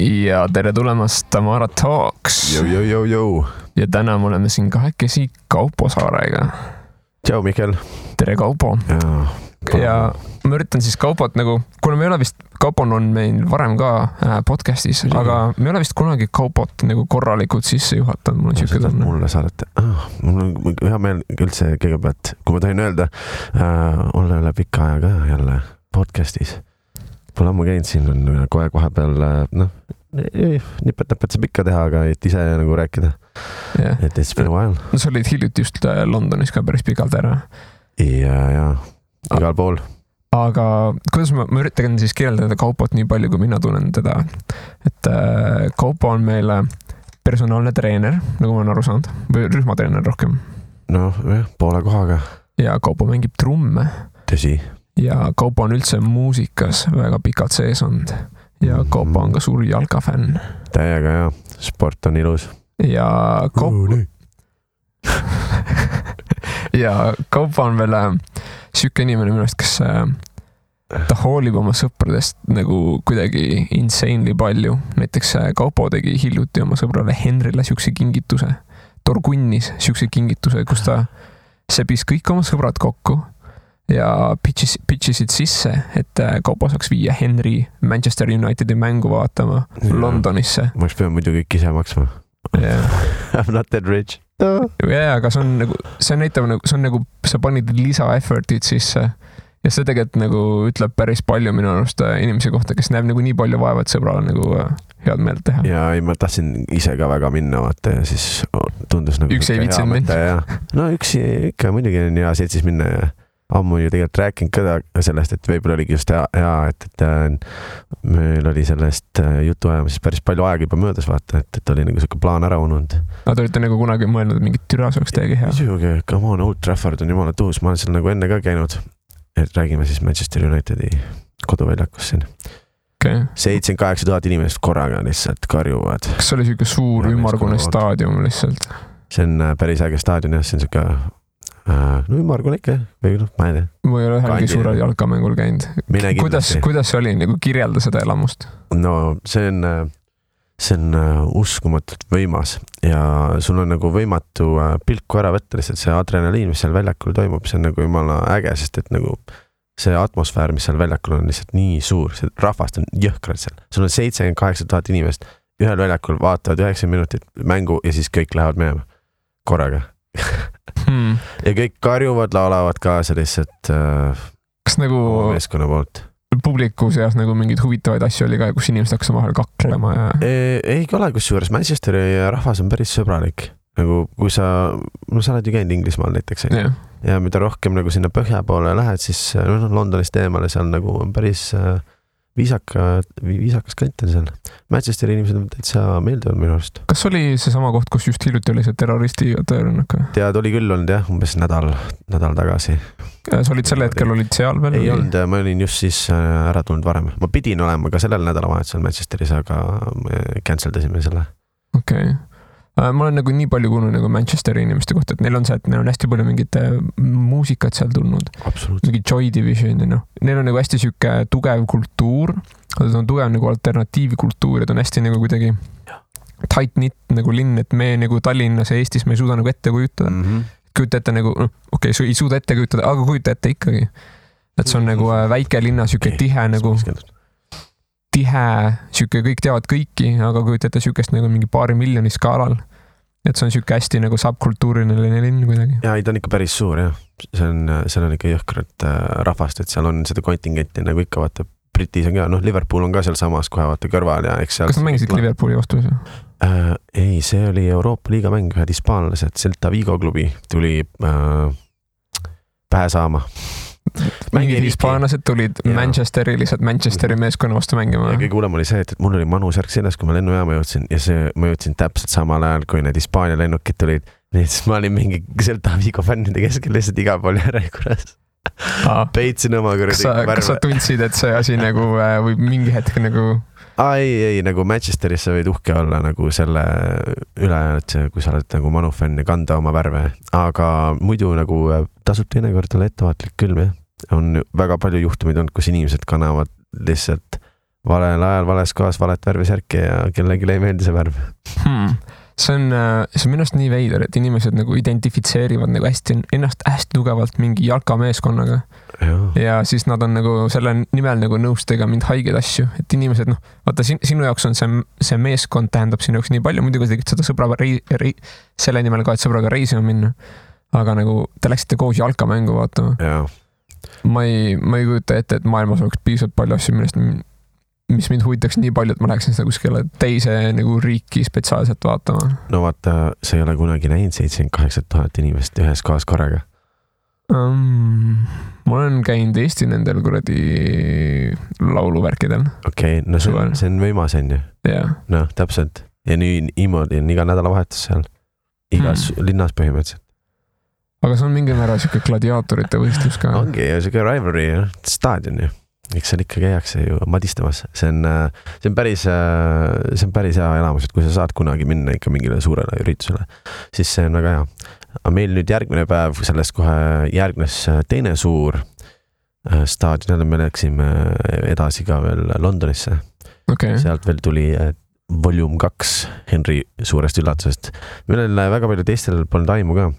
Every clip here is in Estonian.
Ja tere tulemast Tamara Talks. Jou. Ja täna me oleme siin kahekesi Kaupo Saarega. Tšau, Mihkel. Tere, Kaupo. Ja ma üritan siis Kaupot nagu, kuna me ei ole vist, Kaupon on meil varem ka podcastis, aga me ei ole vist kunagi Kaupot nagu korralikult sisse juhatanud. Mul on siuke tunne. Mulle saadate. Mul on hea meel üldse kõigepealt, kui ma tohin öelda, olla üle pika aja ka jälle podcastis. Pole ammu käinud siin, on kohe vahepeal, nipet saab ikka teha, aga et ise nagu rääkida. Yeah. Et it's been a while. No sa olid hiljuti just Londonis ka päris pikalt ära. Ja, igal pool. Aga kuidas ma üritan siis kirjeldada Kaupot nii palju, kui mina tunnen teda. Et Kaupo on meil personaalne treener, nagu ma olen aru saanud, või rühmatreener rohkem. Poole kohaga. Ja Kaupo mängib trumme. Tõsi. Ja Kaupo on üldse muusikas väga pikalt sees olnud. Ja Kaupo on ka suur jalkafänn. Täiega, ja. Sport on ilus. Ja Kaupo... ja Kaupo on veel siuke inimene minust, kes ta hoolib oma sõpradest nagu kuidagi insanely palju. Näiteks Kaupo tegi hiljuti oma sõbrale Henrile siukse kingituse. Torgunnis siukse kingituse, kus ta sebis kõik oma sõbrad kokku ja pitchisid sisse, et Kaupo saaks viia Henry Manchester Unitedi mängu vaatama Londonisse. Ma oleks pidanud muidu kõik ise maksma. Yeah. I'm not that rich. Aga see on nagu, see näitab nagu, see on nagu, sa panid lisa effortid sisse ja see tegelikult nagu ütleb päris palju minu arust inimese kohta, kes näeb nagu nii palju vaeva, et sõbrale nagu head meelt teha. Ja ma tahtsin ise ka väga minna, vaata, ja siis tundus nagu... Üks ei vitsinud minna. No üks ikka muidugi on hea seltsis minna ja ammu ju tegelikult rääkinud ka sellest, et võib-olla oligi just hea, et meil oli sellest jutu ajamises päris palju aega juba möödas, vaata, et oli nagu selline plaan ära ununud. Aga te olite nagu kunagi mõelnud, et mingit türa saaks teiegi hea? Muidugi, come on, Old Trafford on jumala tuus, ma olen seal nagu enne ka käinud, et räägime siis Manchester Unitedi koduväljakus siin. Okay. 78 000 inimest korraga lihtsalt karjuvad. Kas oli siuke suur ümmargune staadium lihtsalt? See on päris äge staadion, jah, see on siuke ümmargune ikka, või ma ei tea. Ma ei ole ühelgi suurel jalkamängul käinud. Kuidas see oli, nagu kirjelda seda elamust? No see on uskumatult võimas ja sul on nagu võimatu pilku ära võtta lihtsalt see adrenaliin, mis seal väljakul toimub, see on nagu jumala äge, sest et nagu see atmosfäär, mis seal väljakul on lihtsalt nii suur, see rahvast on jõhkrad seal. Sul on 78 000 inimest, ühel väljakul vaatavad 9 minutit mängu ja siis kõik lähevad minema korraga. Ja kõik karjuvad, laulavad kaasa lihtsalt kas nagu meeskonna poolt. Publiku seas nagu mingid huvitavaid asju oli ka, kus inimesed hakkas vahel kaklema ja... Ei ole kusjuures, Manchesteri rahvas on päris sõbralik. Nagu kui sa oled ju käinud Inglismaal näiteks. Ja mida rohkem nagu sinna põhja poole lähed, siis Londonist eemale seal nagu on päris viisakas kant on seal. Manchesteri inimesed on täitsa meeldivad minu arust. Kas oli see sama koht, kus just hiljuti oli see terroristi tõrnaka? Tead, oli küll olnud jah, umbes nädal tagasi. Sa olid selle hetkel olid seal veel? Ei olnud, ma olin just siis ära tulnud varem. Ma pidin olema ka sellel nädalavahetusel Manchesteris, aga canceldasime selle. Okei. Ma olen nagu nii palju kuulnud nagu Manchesteri inimeste kohta, et neil on see, et neil on hästi palju mingit muusikat seal tulnud. Mingi Joy Division ja neil on nagu hästi siuke tugev kultuur, aga see on tugev nagu alternatiivikultuur ja ta on hästi nagu kuidagi tight-knit nagu linn, et me nagu Tallinnas ja Eestis me ei suuda nagu ette kujutada. Kujuta ette nagu, okei, ei suuda ette kujutada, aga kujuta ette ikkagi. Et see on nagu väike linna siuke tihe nagu... tihe, siuke kõik teavad kõiki, aga kujuta ette siukest nagu mingi paari miljoni skaalal. Et see on siuke hästi nagu subkultuuriline linn kuidagi. Ja, ta on ikka päris suur, jah. Seal on ikka jõhkrad rahvast, et seal on seda kontingenti nagu ikka vaata, Britis on ka, Liverpool on ka seal samas kohe vaata kõrval ja eks seal... Kas mängisid Liverpooli vastu? Ei, see oli Euroopa liiga mäng, ühed hispaanlased, Celta Vigo klubi tuli pähe saama. Mingid hispaanlased tulid Manchesteri lihtsalt Manchesteri meeskonna vastu mängima. Ja kõige hullem oli see, et mul oli manusärk seljas, kui ma lennujaama jõudsin ja ma jõudsin täpselt samal ajal, kui need Hispaania lennukid tulid. Nii et ma olin mingi Celta Vigo fännide keskel lihtsalt iga pool järjekorras. Peitsin oma kõrdi värve. Kas sa tundsid, et see asi nagu või mingi hetk nagu... Ei, nagu Manchesterisse võid uhke olla nagu selle üle, et kui sa oled nagu manufänn ja kanda oma värve. Aga muidu nagu tasub teinekord olla ettevaatlik küll, on väga palju juhtumeid olnud, kus inimesed kannavad lihtsalt valel ajal, vales kohas, valet värvi särki ja kellelegi ei meeldi see värv. See on minu arust nii veider, et inimesed nagu identifitseerivad nagu ennast hästi tugevalt mingi jalkameeskonnaga. Ja siis nad on nagu selle nimel nagu nõus tegema mind haigeid asju, et inimesed vaata sinu jaoks on see meeskond tähendab sinu jaoks nii palju, muidugi tegid seda sõbraga selle nimel ka, et sõbraga reisima minna, aga nagu te läksite koos jalkamängu vaatama. Ma ei kujuta ette, et maailmas oleks piisavalt palju asju, mis mind huvitaks nii palju, et ma läheksin seda kuskile teise nagu riiki spetsiaalselt vaatama. No vaata, sa ei ole kunagi näinud 78 000 inimest ühes kohas korraga. Ma olen käinud Eesti nendel kuradi lauluvärkidel. Okei, no see on võimas on ju. No, täpselt. Ja niimoodi on iga nädalavahetus seal. Igas linnas põhimõtteliselt. Aga see on mingi määra siuke gladiaatorite võistlus ka. Ongi ja siuke rivalry ja staadion ju. Eks seal ikka käiakse ju madistamas. See on päris hea elamus, et kui sa saad kunagi minna ikka mingile suurele üritusele, siis see on väga hea. Aga meil nüüd järgmine päev, sellest kohe järgnes teine suur staadion, me läksime edasi ka veel Londonisse. Sealt veel tuli Volume 2 Henry suurest üllatusest. Meil väga palju teistel polnud aimu ka.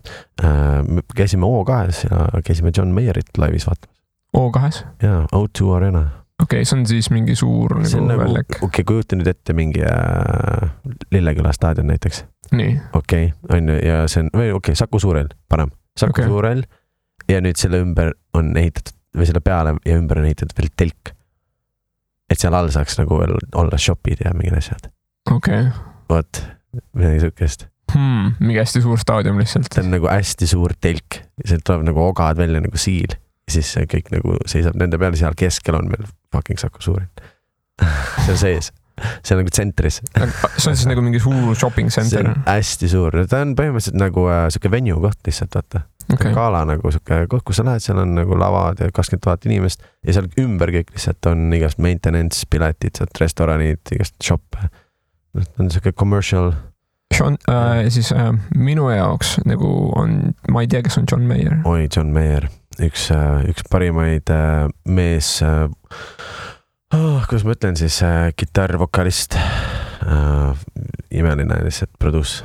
Me käisime O2 ja käisime John Mayerit laivis vaatamas. O2? Jaa, O2 Arena. See on siis mingi suur nagu väljak. Kujuta nüüd ette mingi Lilleküla staadion näiteks. Nii. On ja see on, Saku Suurel, parem. Saku Suurel ja nüüd selle ümber on ehitatud, või selle peale ja ümber on ehitatud veel telk. Et seal all saaks nagu veel olla shopid ja mingid asjad. Vot, midagi sukest. Mingi hästi suur staadion lihtsalt. See on nagu hästi suur telk. See tuleb nagu ogad välja nagu siil. Ja siis see kõik nagu seisab nende peale, seal keskel on meil fucking Saku Suurel. See on sees. See on nagu tsentris. See on siis nagu mingi suur shopping center. See on hästi suur. Ta on põhimõtteliselt nagu suke venue koht lihtsalt, vaata. Kaala nagu suke koht, kus sa lähed, seal on nagu lavad ja 20 000 inimest ja seal ümber kõik lihtsalt on igast maintenance, piletid, restoranid, igast shoppe. On suke commercial. Siis minu jaoks nagu on, ma ei tea, kes on John Mayer. Oi, John Mayer. Üks parimaid mees, kuidas ma ütlen siis, kitarrvokalist, imeline lihtsalt produus.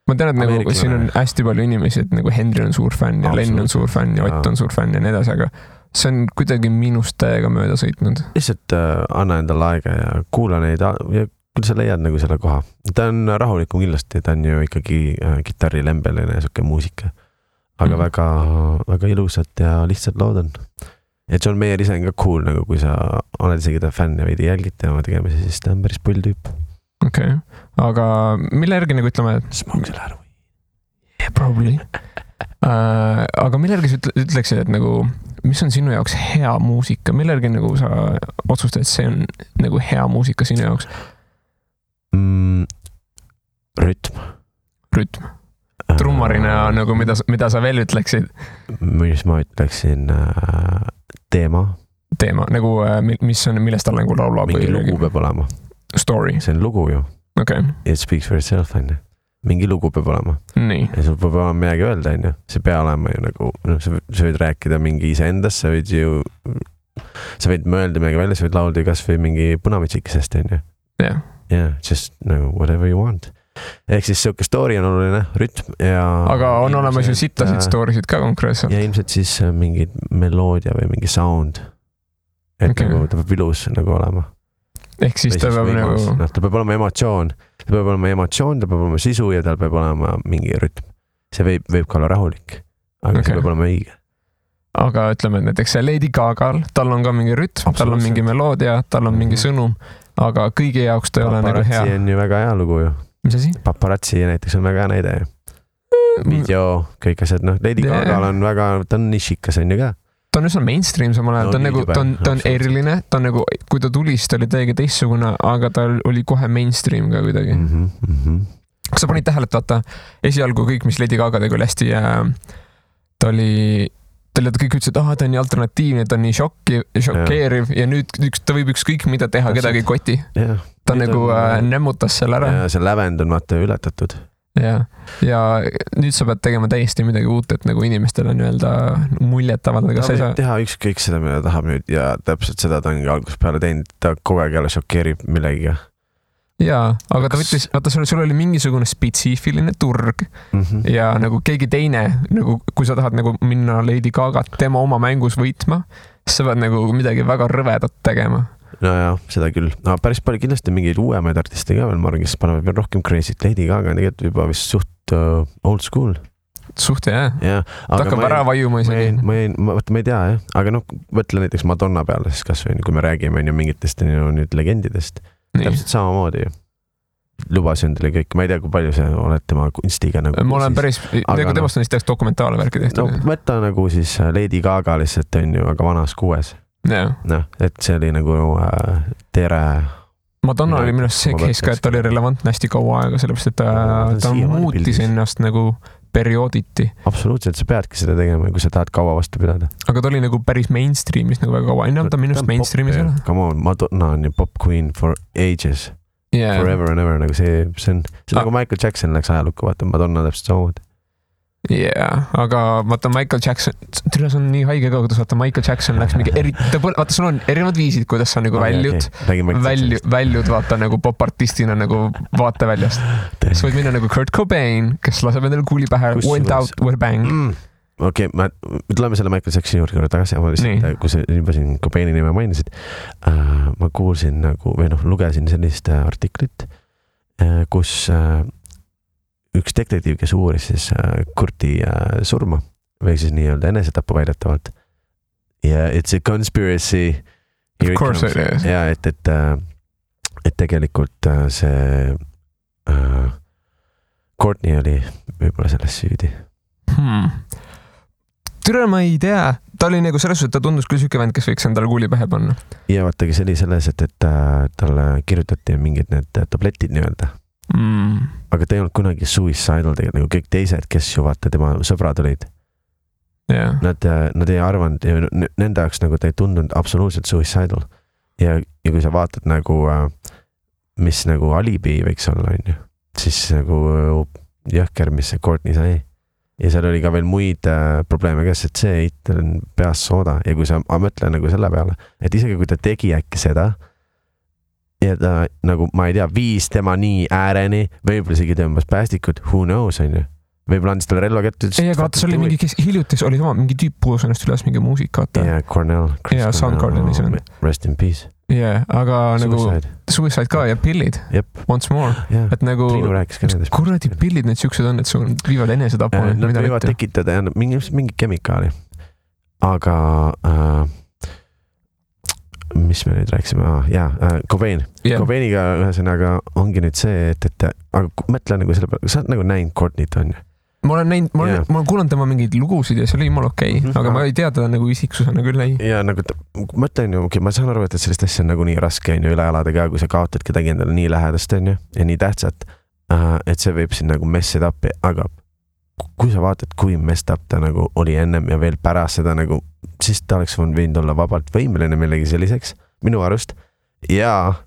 Ma tean, et nagu siin on hästi palju inimesi, et nagu Henry on suur fänn ja Len on suur fänn ja Ott on suur fänn ja nii edasi, aga see on kuidagi minust täiega mööda sõitnud. Lihtsalt anna endale aega ja kuula neid ja küll sa leiad nagu selle koha. Ta on rahulikum kindlasti, ta on ju ikkagi kitarrilembeline ja suke muusika. Aga väga ilusad ja lihtsad lood on. Ja John Mayer ise on ka cool, nagu kui sa oled isegi ta fänn ja veidi jälgid tema tegemisi, siis ta on päris pull tüüp. Aga mille järgi nagu ütleme, Smoke selle ära või? Yeah, probably. Aga mille järgi sa ütleksid, et nagu, mis on sinu jaoks hea muusika? Mille järgi nagu sa otsustad, et see on nagu hea muusika sinu jaoks? Rütm. Trummarina nagu mida sa veel ütleksid? Mis ma ütleksin? Teema, nagu millest tal nagu laulab? Mingi lugu peab olema. Story? See on lugu ju. It speaks for itself, on ju. Mingi lugu peab olema. Nii. Ja sul peab olema midagi öelda, on ju. See peab olema ju nagu, sa võid rääkida mingi iseendast, sa võid mõelda midagi välja, sa võid laulda kas või mingi punavitsikesest, on ju. Yeah, just nagu whatever you want. Ehk siis siuke story on oluline, rütm ja... Aga on olemas ju sittasid storysid ka konkreetselt. Ja ilmselt siis mingid meloodia või mingi sound. Et nagu ta peab ilus nagu olema. Ehk siis ta peab nagu... Ta peab olema emotsioon. Ta peab olema sisu ja tal peab olema mingi rütm. See võib ka olla rahulik, aga see peab olema õige. Aga ütleme, et näiteks Lady Gagal, tal on ka mingi rütm, tal on mingi meloodia, tal on mingi sõnum, aga kõigi jaoks ta ei ole nagu hea. Paparazzi on ju väga hea lugu ju. Mis asi? Paparazzi näiteks on väga hea näide. Video, kõik asjad, Lady Gagal on väga, ta on nišikas on ju ka. Ta on üsna mainstream samal ajal, ta on eriline, ta on nagu, kui ta tuli, siis ta oli täiega teistsugune, aga ta oli kohe mainstream ka kuidagi. Kas sa panid tähele, et vaata, esialgu kõik, mis Lady Gaga tegi, oli hästi, ta kõik ütlesid, et ta on nii alternatiivne, ta on nii šokeeriv ja nüüd ta võib ükskõik mida teha, kedagi koti. Ta nagu nämmutas selle ära. Ja see lävend on vaata ületatud. ja nüüd sa pead tegema täiesti midagi uut, et nagu inimestel on öelda muljet avaldada. Ta võib teha ükskõik seda, mida tahab nüüd ja täpselt seda ta ongi algusest peale teinud, ta kogu aeg jälle šokeerib millegiga. Jaa, aga ta võttis, vaata sul oli mingisugune spetsiifiline turg ja nagu keegi teine, nagu kui sa tahad nagu minna Lady Gagat tema oma mängus võitma, siis sa pead nagu midagi väga rõvedat tegema. No jah, seda küll. No, päris palju kindlasti mingeid uuemaid artiste ka veel, ma arvan, kes panevad veel rohkem crazy't. Lady Gaga on tegelikult juba vist suht old school. Suht jah. Ta hakkab ära vajuma isegi. Ma ei tea jah, aga noh, võtle näiteks Madonna peale siis kas või, kui me räägime mingitest nüüd legendidest. Täpselt samamoodi ju. Lubasin endale kõik, ma ei tea, kui palju see oled tema kunstiga nagu. Ma olen päris, nagu temast on siis teaks dokumentaale värki tehtud. No võtta nagu siis Lady Gaga lihtsalt on ju, aga vanas 6. No, et see oli nagu tere. Madonna oli minust see case ka, et ta oli relevantne hästi kaua aega, sellepärast, et ta muutis ennast nagu periooditi. Absoluutselt, sa peadki seda tegema, kui sa tahad kaua vastu pidada. Aga ta oli nagu päris mainstreamis nagu väga kaua. Enne ta minust mainstreamis ei ole. Come on, Madonna on ju pop queen for ages. Forever and ever, nagu see on nagu Michael Jackson läks ajalukku, vaata Madonna täpselt samamoodi. Aga vaata Michael Jackson, see on nii haige ka, kuidas vaata Michael Jackson läks mingi vaata sul on erinevad viisid, kuidas sa nagu väljud vaata nagu popartistina nagu vaateväljast. Sa võid minna nagu Kurt Cobain, kes laseb endale kuuli pähe, went out with a bang. Okei, me tuleme selle Michael Jacksoni juurde tagasi, ma lihtsalt, kui sa juba siin Cobaini nime mainisid, ma kuulsin nagu, või noh, lugesin sellist artiklit, kus üks detektiiv, kes uuris siis Kurti surma või siis nii-öelda enesetapu väidetavalt. Ja it's a conspiracy. Of course it is. Ja, et tegelikult see Courtney oli võib-olla selles süüdi. Türa ma ei tea. Ta oli nagu selles, et ta tundus küll süke vend, kes võiks endale kuuli pähe panna. Ja vaatagi, see oli selles, et talle kirjutati mingid need tabletid nii-öelda. Aga ta ei olnud kunagi suicidal tegelikult, nagu kõik teised, kes ju vaata tema sõbrad olid. Nad ei arvanud, nende jaoks nagu ta ei tundunud absoluutselt suicidal. Ja kui sa vaatad nagu, mis nagu alibi võiks olla, siis nagu jõhker, mis see Courtney sai. Ja seal oli ka veel muid probleeme käes, et see eitel on peas sooda. Ja kui sa mõtle nagu selle peale, et isegi kui ta tegi äkki seda, ja ta nagu, ma ei tea, viis tema nii ääreni, võib-olla isegi tõmbas päästikut, who knows, on ju. Võib-olla andis talle relva kätte. Ei, aga vaata, see oli mingi, kes hiljutis oli sama, mingi tüüp puhus ennast üles mingi muusika. Cornell. Soundgarden ise on. Rest in peace. Aga nagu Suicide ka ja pillid. Once more. Et nagu, kuradi pillid need siuksed on, et sul viivad enesetapu. Nad võivad tekitada mingi kemikaali. Aga mis me nüüd rääksime? Cobain. Cobainiga ühesõnaga ongi nüüd see, et aga mõtle nagu selle peale, sa oled nagu näinud Courtney't on ju? Ma olen kuulanud tema mingeid lugusid ja see oli jumala okei, aga ma ei tea teda nagu isiksusena küll ei. Ja nagu mõtlen ju, ma saan aru, et sellist asja on nagu nii raske on ju üle elada ka, kui sa kaotad kedagi endale nii lähedast on ju ja nii tähtsat, et see võib siin nagu mess it up, aga kui sa vaatad, kui messed up ta nagu oli ennem ja veel pärast seda nagu, siis ta oleks võinud olla vabalt võimeline millegi selliseks, minu arust. Ja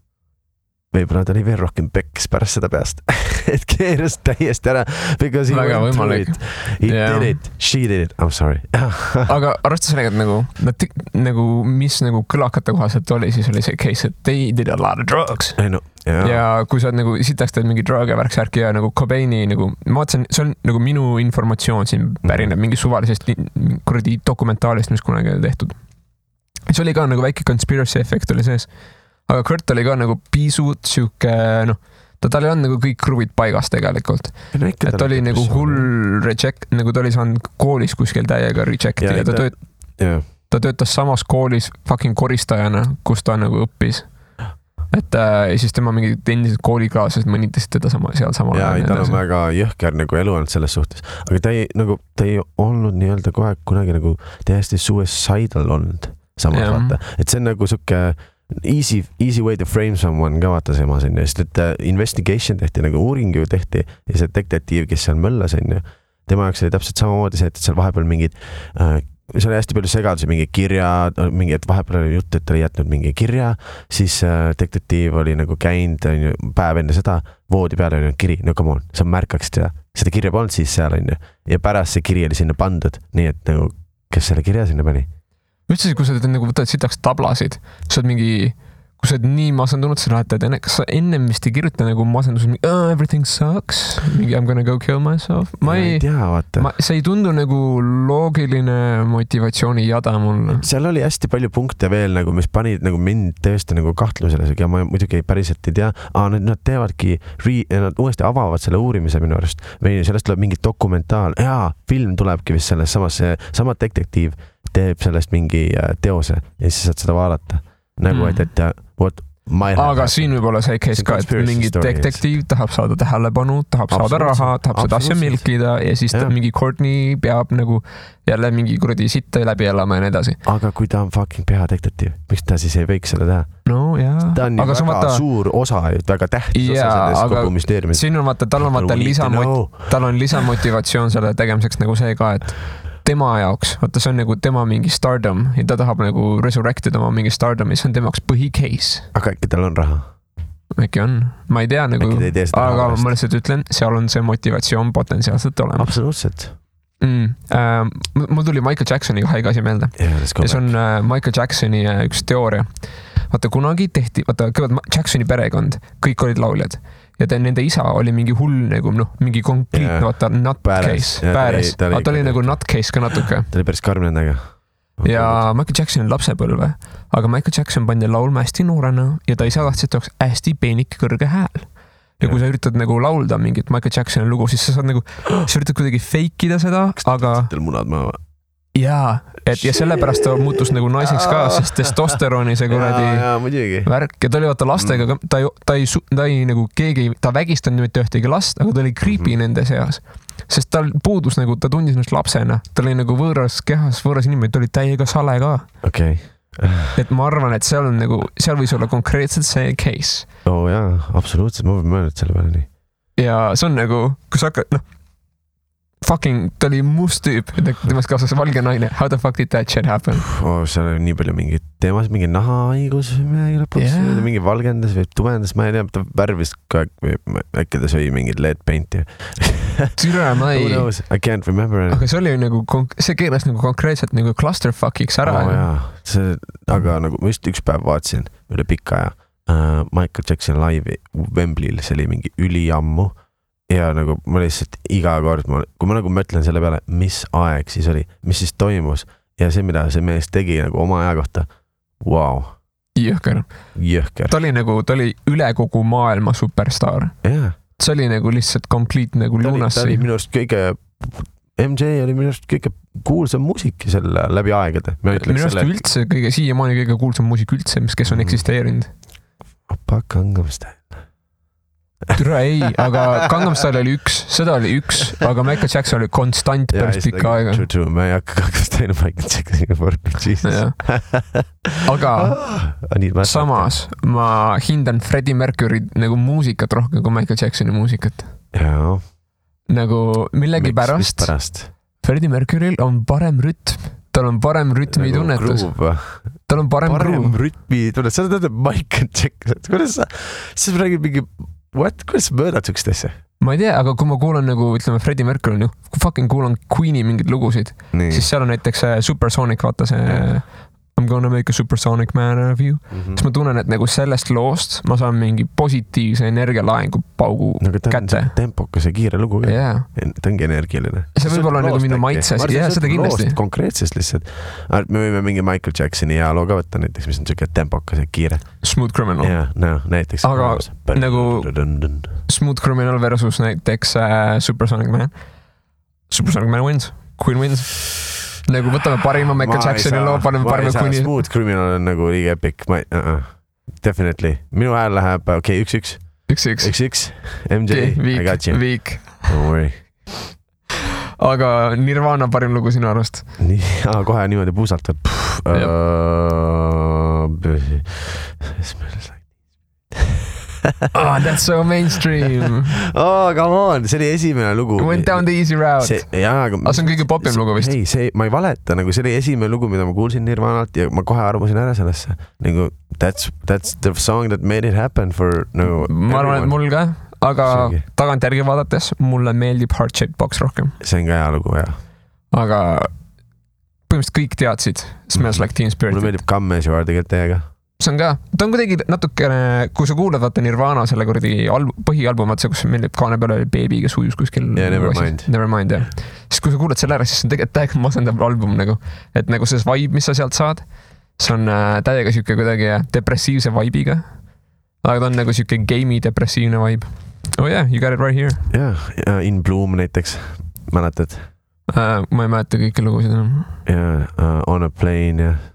võib-olla ta oli veel rohkem peks pärast seda peast, et keeras täiesti ära, because he went through it. He did it, she did it, I'm sorry. Aga arvestas sellega, et nagu, mis nagu kõlakate kohaselt oli, siis oli see case, et they did a lot of drugs. Ja kui sa nagu sitaks teed mingi drug ja värksärki ja nagu Cobaini nagu, ma vaatasin, see on nagu minu informatsioon siin pärineb mingi suvalisest kuradi dokumentaalist, mis kunagi oli tehtud. See oli ka nagu väike conspiracy effect oli sees. Aga Kurt oli ka nagu pisut siuke, noh, tal ei olnud nagu kõik kruvid paigas tegelikult. Et oli nagu hull reject, nagu ta oli saanud koolis kuskil täiega rejecti ja ta töötas samas koolis fucking koristajana, kus ta nagu õppis. Et siis tema mingid endised koolikaaslased mõnitasid teda seal samal. Ja ei, tal on väga jõhker nagu elu olnud selles suhtes. Aga ta ei olnud nii-öelda kohe kunagi nagu täiesti suicidal olnud samas vaata. Et see on nagu suke easy way to frame someone ka vaata seemas on ju. Sest et investigation tehti, nagu uuring ju tehti ja see detektiiv, kes seal möllas on ju. Tema jaoks oli täpselt samamoodi see, et seal vahepeal mingid see oli hästi palju segadusi, mingi kirja, mingi, et vahepeal oli jutt, et ta oli jätnud mingi kirja, siis detektiiv oli nagu käinud päev enne seda, voodi peale oli kiri, no come on, sa märkaksid seda kirja polnud siis seal on ju, ja pärast see kiri oli sinna pandud, nii et nagu, kes selle kirja sinna pani? Üldse, kui sa nagu võtad sitaks tablasid, sa oled mingi, kui sa oled nii masendunud, sa lähed, kas sa ennem vist ei kirjuta nagu masendus, everything sucks, mingi I'm gonna go kill myself. Ma ei tea, vaata. See ei tundu nagu loogiline motivatsiooni jada mulle. Seal oli hästi palju punkte veel, nagu, mis panid nagu mind tõesti nagu kahtlusele, ja ma muidugi päriselt ei tea, nad teevadki, nad uuesti avavad selle uurimise minu arust, või sellest tuleb mingi dokumentaal, film tulebki vist sellest samas, sama detektiiv teeb sellest mingi teose ja siis saad seda vaadata. Nagu, et aga siin võib olla see case ka, et mingi detektiiv tahab saada tähelepanu, tahab saada raha, tahab seda asja milkida ja siis mingi Courtney peab nagu jälle mingi kuradi sitta läbi elama ja nii edasi. Aga kui ta on fucking peadetektiiv, miks ta siis ei võiks seda teha? No jaa. Ta on ju väga suur osa, väga tähtis osa sellest kogu müsteeriumist. Siin on vaata, tal on lisamotivatsioon selle tegemiseks nagu see ka, et tema jaoks, vaata see on nagu tema mingi stardom ja ta tahab nagu resurrectida oma mingi stardomi, see on tema jaoks põhicase. Aga äkki tal on raha? Äkki on, ma ei tea nagu, aga ma lihtsalt ütlen, seal on see motivatsioon potentsiaalselt olemas. Absoluutselt. Mul tuli Michael Jacksoni haige asi meelde. Ja see on Michael Jacksoni üks teooria. Vaata kunagi tehti, vaata Jacksoni perekond, kõik olid lauljad. Ja nende isa oli mingi hull nagu, mingi konkreetne, vaata, nutcase, pääres. Ta oli nagu nutcase ka natuke. Ta oli päris karm nendega. Ja Michael Jackson on lapsepõlve, aga Michael Jackson pandi laulma hästi noorena ja ta isa tahtsid oleks hästi peenik kõrge hääl. Ja kui sa üritad nagu laulda mingit Michael Jacksoni lugu, siis sa saad nagu, sa üritad kuidagi fakeida seda, aga... Kas ta munad maha? Jaa, ja sellepärast ta muutus nagu naiseks ka, sest testosteroni see kuradi värk ja ta oli vaata lastega, ta ei nagu keegi, ta vägistanud mitte ühtegi last, aga ta oli creepy nende seas, sest tal puudus nagu, ta tundis ennast lapsena, ta oli nagu võõras kehas, võõras inimene, ta oli täiega sale ka. Et ma arvan, et seal on nagu, seal võis olla konkreetselt see case. Jaa, absoluutselt, ma võin mõelnud selle peale nii. Ja see on nagu, kui sa hakkad, fucking, ta oli must tüüp, temast kaasas valge naine. How the fuck did that shit happen? Seal oli nii palju mingid teemas, mingi nahahaigus mingi valgendas või tumendas, ma ei tea, ta värvis ka, äkki ta sõi mingid LED painti. Türa, ma ei... I can't remember. Aga see oli nagu, see keeras nagu konkreetselt nagu clusterfuckiks ära. Aga nagu ma just üks päev vaatasin üle pikka aja Michael Jackson live'i Wembley'l, see oli mingi üliammu. Ja nagu ma lihtsalt iga kord, kui ma nagu mõtlen selle peale, mis aeg siis oli, mis siis toimus ja see, mida see mees tegi nagu oma aja kohta, wow. Jõhker. Ta oli üle kogu maailma superstar. See oli nagu lihtsalt complete nagu lunassi. Ta oli minu arust MJ oli minu arust kõige kuulsam muusik selle läbi aegade. Minu arust üldse siiamaani kõige kuulsam muusik üldse, kes on eksisteerinud. Opa, Gangnam Style. Türa ei, aga Gangnam Style oli seda oli üks, aga Michael Jackson oli konstant päris pikka aega. True, ma ei hakka Gangnam Style Michael Jacksoni võrku, Jesus. Aga samas ma hindan Freddie Mercury nagu muusikat rohkem kui Michael Jacksoni muusikat. Jaa. Nagu millegi pärast Freddie Mercuryl on parem rütm. Tal on parem rütmi tunnetus. Tal on parem rütmi tunnetus. Sa tead Michael Jackson. Kuidas sa räägid mingi... Kuidas sa möödad sükst asja? Ma ei tea, aga kui ma kuulan nagu, ütleme, Freddie Mercury, kui fucking kuulan Queeni mingid lugusid, siis seal on näiteks Supersonic, vaata see I'm gonna make a supersonic man of you. Siis ma tunnen, et nagu sellest loost ma saan mingi positiivse energialaengu paugu kätte. Tempokas ja kiire lugu. Ta ongi energialine. See võib olla nagu minu maitses. Ja seda kindlasti. Konkreetsest lihtsalt. Me võime mingi Michael Jacksoni ja loo ka võtta näiteks, mis on siuke tempokas ja kiire. Smooth Criminal. Näiteks. Aga nagu Smooth Criminal versus näiteks Supersonic Man. Supersonic Man wins. Queen wins. Nagu võtame parima Michael Jacksoni loo, paneme parima Queeni. Smooth Criminal on nagu liiga epic. Definitely. Minu hääl läheb, 1-1. 1-1. MJ, I got you. Weak. Don't worry. Aga Nirvana parim lugu sinu arvast? Kohe niimoodi puusalt. Oh, that's so mainstream. Oh, come on, see oli esimene lugu. Went down the easy route. See on kõige popim lugu vist. Ei, ma ei valeta, nagu see oli esimene lugu, mida ma kuulsin Nirvanalt ja ma kohe arvasin ära sellesse. Nagu, that's the song that made it happen for nagu ma arvan, et mul ka, aga tagantjärgi vaadates mulle meeldib Heart Shaped Box rohkem. See on ka hea lugu, jah. Aga põhimõtteliselt kõik teadsid Smells Like Teen Spirit. Mulle meeldib Come As You Are tegelikult teiega. See on ka, ta on kuidagi natukene, kui sa kuulad vaata Nirvana selle kuradi põhialbum, see, kus meeldib kaane peale oli Baby, kes ujus kuskil. Yeah, Nevermind, jah. Siis kui sa kuulad selle ära, siis see on tegelikult täiega masendav album nagu, et nagu see vibe, mis sa sealt saad, see on täiega siuke kuidagi depressiivse vibe'iga, aga ta on nagu siuke gamey depressiivne vibe. Oh yeah, you got it right here. Yeah, In Bloom näiteks, mäletad? Ma ei mäleta kõiki lugusid enam. Yeah, On a Plane, jah.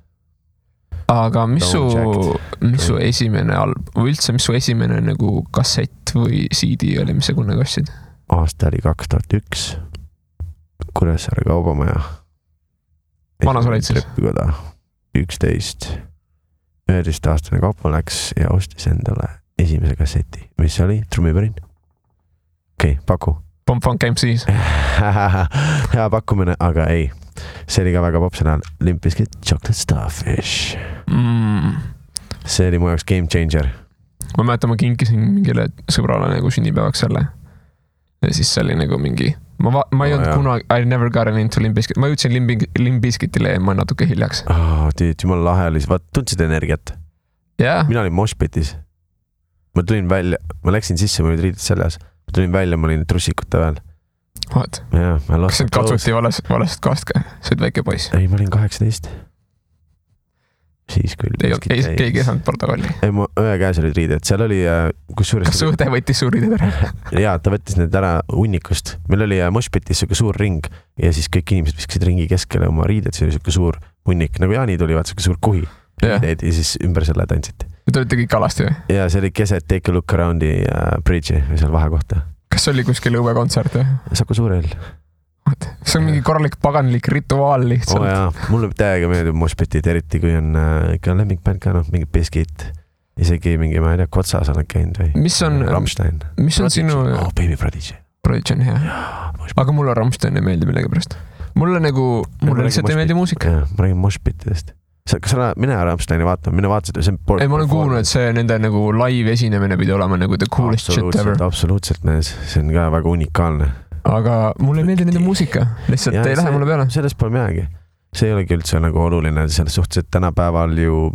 Aga mis su esimene või üldse, mis su esimene nagu kassett või CD oli, mis sa kunagi ostsid? Aasta oli 2001. Kuressaare Kaubamaja. Vana sa olid siis? 11. 11-aastane kaupa läks ja ostis endale esimese kasseti. Mis oli? Trummipärin? Okei, paku. Pump Funk MCs. Hea pakkumine, aga ei. See oli ka väga popsel ajal. Limp Bizkit, Chocolate Starfish. See oli mu jaoks game changer. Ma mäletan, ma kinkisin mingile sõbrale nagu sünnipäevaks selle. Ja siis see oli nagu mingi... Ma ei olnud kunagi... I never got into Limp Bizkit. Ma jõudsin Limp Bizkitile ja ma natuke hiljaks. Jumal lahe oli. Vaat, tundsid energiat? Yeah. Mina olin moshpitis. Ma tulin välja... Ma läksin sisse, ma olid riidid seljas. Ma tulin välja, ma olin trussikute veel. What? Yeah, kas see katsuti valest kohast ka? See olid väike poiss? Ei, ma olin 18. Siis küll. Keegi ei saanud protokolli? Ei, mu õe käes olid riided. Seal oli... Kas su õde võttis suur riided ära? Jaa, ta võttis need ära hunnikust. Meil oli moshpitis suke suur ring ja siis kõik inimesed viskasid ringi keskele oma riided. See oli suke suur hunnik. Nagu Jaani tuli, vaat suke suur kuhi. Ja siis ümber selle tantsiti. Ja te olite kõik alasti või? Jaa, see oli keset Take a Look Aroundi bridge'i või seal vahekohta. Kas oli kuskil õuekontsert või? Saku Suurel. See on mingi korralik paganlik rituaal lihtsalt. Jaa, mulle täiega meeldib moshpitid, eriti kui on ikka lemmikbänd ka, mingi Bizkit. Isegi mingi, ma ei tea, Kotsas olen käinud või? Mis on Rammstein. Mis on sinu... Baby Prodigy. Prodigy on hea. Aga mulle Rammstein ei meeldi millegipärast. Mulle lihtsalt ei meeldi muusika. Ma räägin moshpitidest. Kas sa mine Rammsteini vaatama, mine vaatasid, see on... Ei, ma olen kuulnud, et see nende nagu live esinemine pidi olema nagu the coolest shit ever. Absoluutselt, mees. See on ka väga unikaalne. Aga mulle ei meeldi nende muusika. Lihtsalt ei lähe mulle peale. Sellest pole midagi. See ei olegi üldse nagu oluline. Selles suhtes, et tänapäeval ju,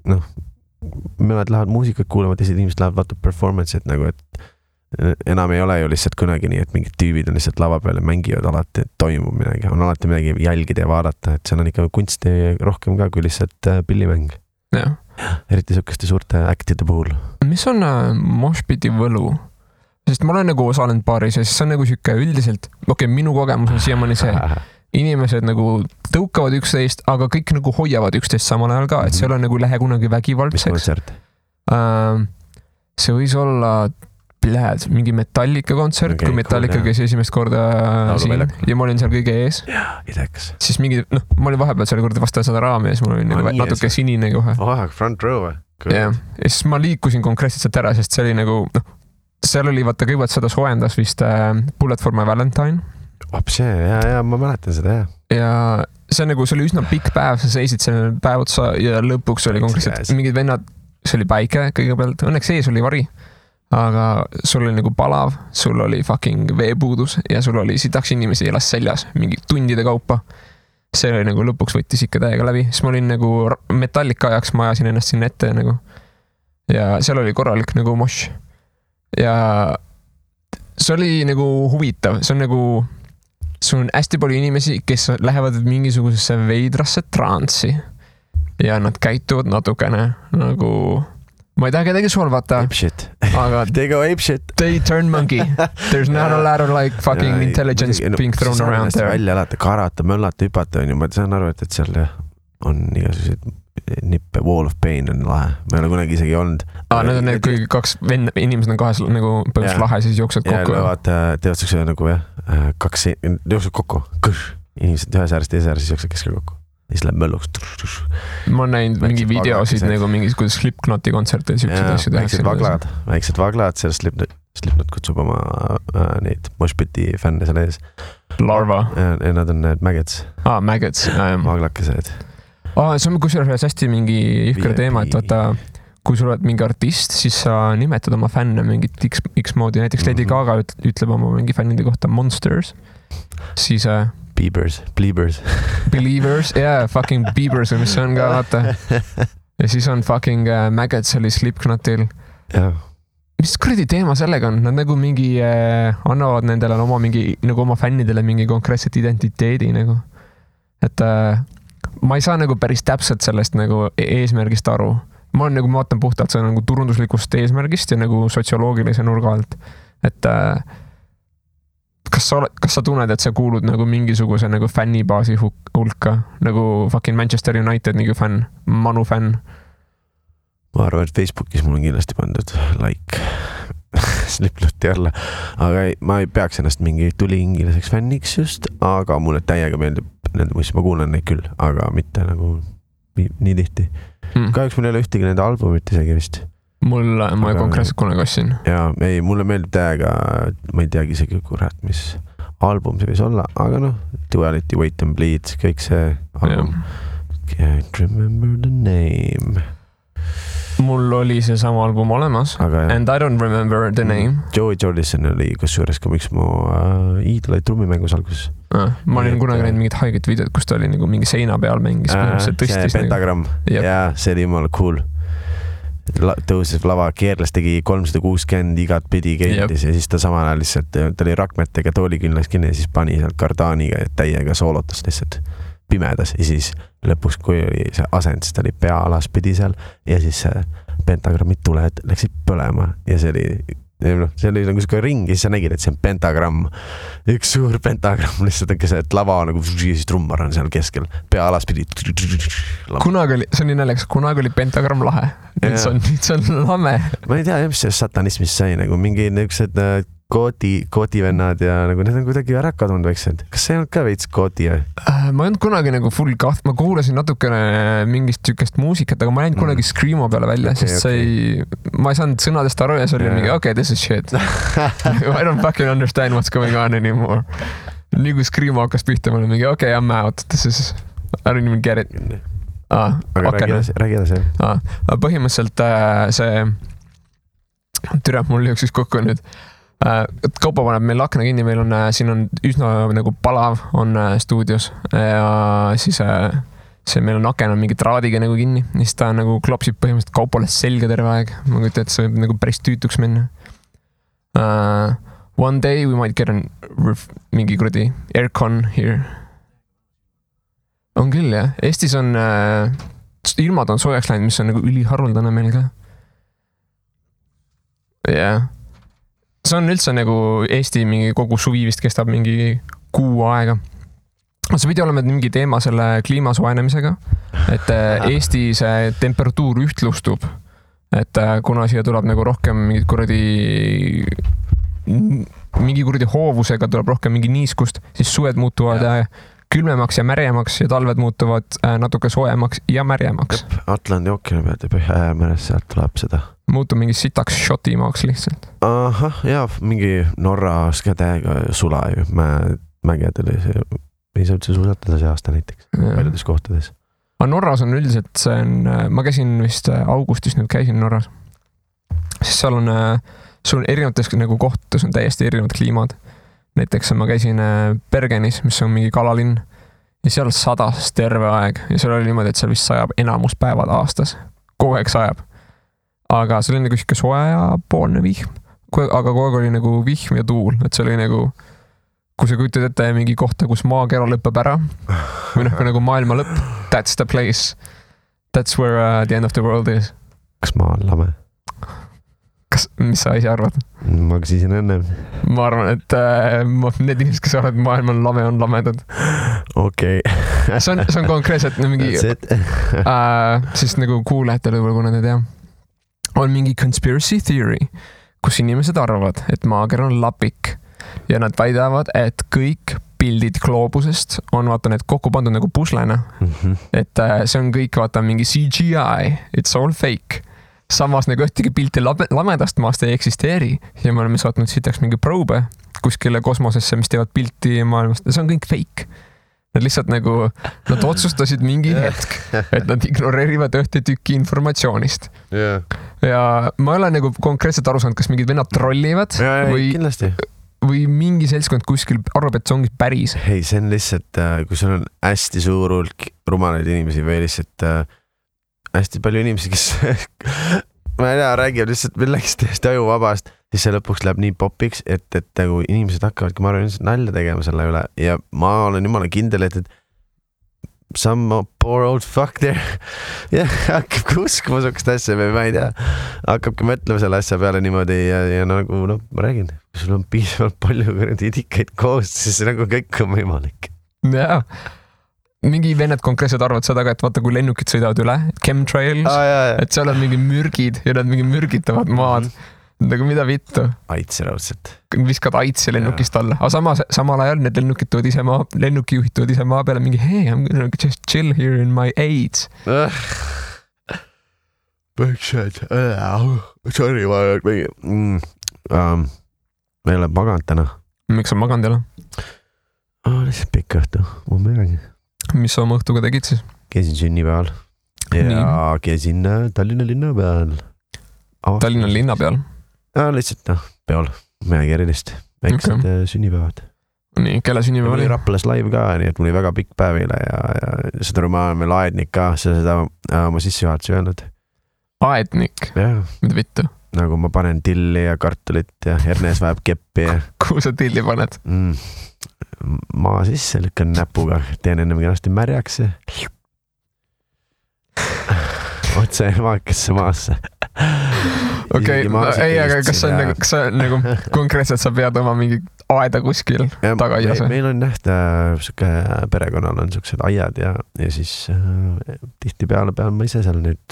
mõned lähevad muusikat kuulama, teised inimesed lähevad vaata performance'id nagu, et enam ei ole ju lihtsalt kunagi nii, et mingid tüübid on lihtsalt lava peal ja mängivad alati, et toimub midagi. On alati midagi jälgida ja vaadata, et seal on ikka kunsti rohkem ka kui lihtsalt pillimäng. Ja. Eriti sukeste suurte actide puhul. Mis on moshpiti võlu? Sest ma olen nagu osalenud paaris ja siis see on nagu siuke üldiselt, minu kogemus on siiamaani see, inimesed nagu tõukavad üksteist, aga kõik nagu hoiavad üksteist samal ajal ka, et see ei ole nagu lähe kunagi vägivaldseks. Mis kontsert? See võis olla mingi Metallica kontsert, kui Metallica käis esimest korda siin ja ma olin seal kõige ees. Ideks. Siis mingi, ma olin vahepeal seal korda vasta seda raami ja siis mul oli nagu natuke sinine kohe. Front row. Ja siis ma liikusin konkreetselt sealt ära, sest see oli nagu, seal oli vaata kõigepealt seda soojendas vist Bullet for my Valentine. See, ja ma mäletan seda, jah. Ja see nagu, see oli üsna pikk päev, sa seisid selle päev otsa ja lõpuks oli konkreetselt mingid vennad, see oli päike kõigepealt, õnneks ees oli vari, aga sul oli nagu palav, sul oli fucking veepuudus ja sul oli sitaks inimesi elas seljas mingi tundide kaupa. See oli nagu lõpuks võttis ikka täiega läbi, siis ma olin nagu Metallica ajaks, ma ajasin ennast sinna ette nagu ja seal oli korralik nagu mosh. Ja see oli nagu huvitav, see on nagu, sul on hästi palju inimesi, kes lähevad mingisugusesse veidrasse transi ja nad käituvad natukene nagu, ma ei taha kedagi solvata, aga they go ape shit. They turn monkey. There's not a lot of like fucking intelligence being thrown around there. Välja alati karata, möllata, hüpata on ju, ma saan aru, et seal on igasuguseid nippe, wall of pain on lahe. Ma ei ole kunagi isegi olnud. Need on need, kui kaks inimesed on kahes nagu põhjus lahe, siis jooksed kokku. Ja teevad siukse nagu kaks jooksed kokku. Inimesed ühes äärest, teise äärest, siis jooksed keskel kokku. siis läheb mölluks. Ma olen näinud mingi videosid nagu mingis, kuidas Slipknoti kontserte ja asju tehakse. Väiksed vaglad, sellest Slipknot kutsub oma neid Moshpiti fänne seal ees. Larva. Ja nad on need Maggots. Maggots. Vaglakesed. See on kusjuures hästi mingi jõhker teema, et vaata, kui sul oled mingi artist, siis sa nimetad oma fänne mingit X moodi. Näiteks Lady Gaga ütleb oma mingi fännide kohta Monsters. Siis... Believers, fucking Beavers või mis see on ka, vaata. Ja siis on fucking Maggots oli Slipknotil. Mis kuradi teema sellega on? Nad nagu mingi annavad nendele nagu oma fännidele mingi konkreetset identiteedi nagu. Et ma ei saa nagu päris täpselt sellest nagu eesmärgist aru. Ma vaatan puhtalt see nagu turunduslikust eesmärgist ja nagu sotsioloogilise nurga alt. Et kas sa tunned, et sa kuulud nagu mingisuguse nagu fännibaasi hulka, nagu fucking Manchester United nagu fänn, Manu fänn? Ma arvan, et Facebookis mul on kindlasti pandud like Slipknoti alla, aga ma ei peaks ennast mingi tuliingiliseks fänniks just, aga mulle täiega meeldib nende muist, ma kuulan neid küll, aga mitte nagu nii tihti. Kahjuks mul ei ole ühtegi nende albumit isegi vist. Ma konkreetselt kunagi ostsin. Jaa, ei, mulle meeldib täiega, ma ei teagi isegi kurat, mis album see võis olla, aga Duality, Wait and Bleed, kõik see album. Can't remember the name. Mul oli see sama album olemas, and I don't remember the name. Joey Jordison oli kusjuures ka miks mu iidolaid trummimängus alguses. Ma olin kunagi näinud mingit haiget videot, kus ta oli nagu mingi seina peal mängis. See pentagramm, jaa, see oli jumala cool. Tõuses lava, keerles tegi 360 igat pidi keeldis ja siis ta samal ajal lihtsalt, ta oli rakmetega toolikünnaks kinni ja siis pani sealt kardaaniga ja täiega soolotas lihtsalt pimedas ja siis lõpuks, kui oli see asend, siis ta oli pea alaspidi seal ja siis pentagrammid tuled läksid põlema ja see oli nagu siuke ring ja siis sa nägid, et see on pentagramm. Üks suur pentagramm lihtsalt on see, et lava nagu siis trummar on seal keskel, pea alaspidi. Kunagi oli, see on nii näljakas, kunagi oli pentagramm lahe. Nüüd see on lame. Ma ei tea, mis see satanismist sai, nagu mingi niisugused koodivennad ja nagu need on kuidagi ära kadunud väiksed. Kas see ei olnud ka veits koodi? Ma ei olnud kunagi nagu full kaht, ma kuulasin natukene mingist tükest muusikat, aga ma ei läinud kunagi Screamo peale välja, sest ma ei saanud sõnadest aru ja see oli mingi, okay, this is shit. I don't fucking understand what's going on anymore. Nii kui Screamo hakkas pihta, ma olin mingi, okay, I'm out, this is, I don't even get it. Aga räägi edasi. Põhimõtteliselt see türa, mul jõuksis kokku nüüd. Kaupa paneb meil akna kinni, meil on, siin on üsna nagu palav on stuudios ja siis see meil on aken on mingi traadiga nagu kinni, siis ta nagu klopsib põhimõtteliselt Kaupale selga terve aeg. Ma kujutan, et see võib nagu päris tüütuks minna. One day we might get mingi kuradi aircon here. On küll, jah. Eestis on, ilmad on soojaks läinud, mis on nagu üliharuldane meil ka. Jah. See on üldse nagu Eesti mingi kogu suvi vist kestab mingi kuu aega. See pidi olema mingi teema selle kliima soojenemisega, et Eesti see temperatuur ühtlustub, et kuna siia tuleb nagu rohkem mingi kuradi hoovusega tuleb rohkem mingi niiskust, siis suved muutuvad külmemaks ja märjemaks ja talved muutuvad natuke soojemaks ja märjemaks. Atlandi ookeani pealt ja Põhja-Meres sealt tuleb seda. Muutub mingi sitaks šotimaaks lihtsalt. Aha, jaa, mingi Norras ka täiega sula ju. Mägedel ei saa üldse suusatada see aasta näiteks paljudes kohtades. Norras on üldiselt, see on, ma käisin vist augustis nüüd käisin Norras. Siis seal on erinevates nagu kohtades on täiesti erinevad kliimad. Näiteks ma käisin Bergenis, mis on mingi kalalinn ja seal sadas terve aeg ja seal oli niimoodi, et seal vist sajab enamus päevad aastas. Kogu aeg sajab. Aga see oli nagu siuke soe ja poolne vihm. Aga kogu aeg oli nagu vihm ja tuul, et see oli nagu, kui sa kujutad ette mingi kohta, kus maakera lõppeb ära või nagu maailma lõpp, that's the place. That's where the end of the world is. Kas maa on lame? Mis sa ise arvad? Ma küsisin enne. Ma arvan, et need inimesed, kes arvad, et maailm on lame, on lamedad. Okei. See on konkreetselt mingi siis nagu kuulajatele võib-olla, kuna te tea. On mingi conspiracy theory, kus inimesed arvavad, et maakera on lapik ja nad väidavad, et kõik pildid gloobusest on vaata need kokku pandud nagu puslena. Et see on kõik vaata mingi CGI, it's all fake. Samas nagu ühtegi pilti lamedast maast ei eksisteeri ja me oleme saatnud sitaks mingi probe kuskile kosmosesse, mis teevad pilti maailmast ja see on kõik fake. Nad lihtsalt nagu, nad otsustasid mingi hetk, et nad ignoreerivad ühte tükki informatsioonist. Ja ma ei ole nagu konkreetselt aru saanud, kas mingid vennad trollivad või mingi seltskond kuskil arvab, et see ongi päris. Hei, see on lihtsalt, kui sul on hästi suur hulk rumalaid inimesi või lihtsalt hästi palju inimesi, kes ma ei tea, räägib lihtsalt millegi täiesti ajuvabast, siis see lõpuks läheb nii popiks, et nagu inimesed hakkavadki, ma arvan, nalja tegema selle üle ja ma olen jumala kindel, et some poor old fuck there hakkabki uskuma sukest asja või ma ei tea, hakkabki mõtlema selle asja peale niimoodi ja nagu ma räägin, kui sul on piisavalt palju idikaid koos, siis nagu kõik on võimalik. Jaa. Mingi vennad konkreetselt arvad seda ka, et vaata, kui lennukid sõidavad üle, chemtrails, et seal on mingi mürgid ja nad mingi mürgitavad maad. Nagu mida vittu? Aitsi raudselt. Viskad aitsi lennukist alla. Aga samal ajal need lennukijuhid tood ise maa peale mingi, hey, I'm gonna just chill here in my AIDS. Sorry, ma ei ole maganud täna. Miks on maganud jälle? Lihtsalt pikk õhtu, ma midagi. Mis sa oma õhtuga tegid siis? Käisin sünnipäeval ja käisin Tallinna linna peal. Tallinna linna peal? Lihtsalt peol, midagi erilist. Väiksed sünnipäevad. Nii, kelle sünnipäev oli? Raplas live ka, nii et mul oli väga pikk päev eile ja seda ma olen veel aednik ka, seda oma sissejuhatuse öelnud. Aednik? Mida vittu? Nagu ma panen tilli ja kartulit ja Ernes vajab keppi ja... Kuhu sa tilli paned? Maa sisse lükkan näpuga, teen ennem kenasti märjaks ja otse maakasse maasse. Okei, ei, aga kas see on nagu konkreetselt sa pead oma mingi aeda kuskil tagaias? Meil on perekonnal on siuksed aiad ja siis tihti peale pean ma ise seal nüüd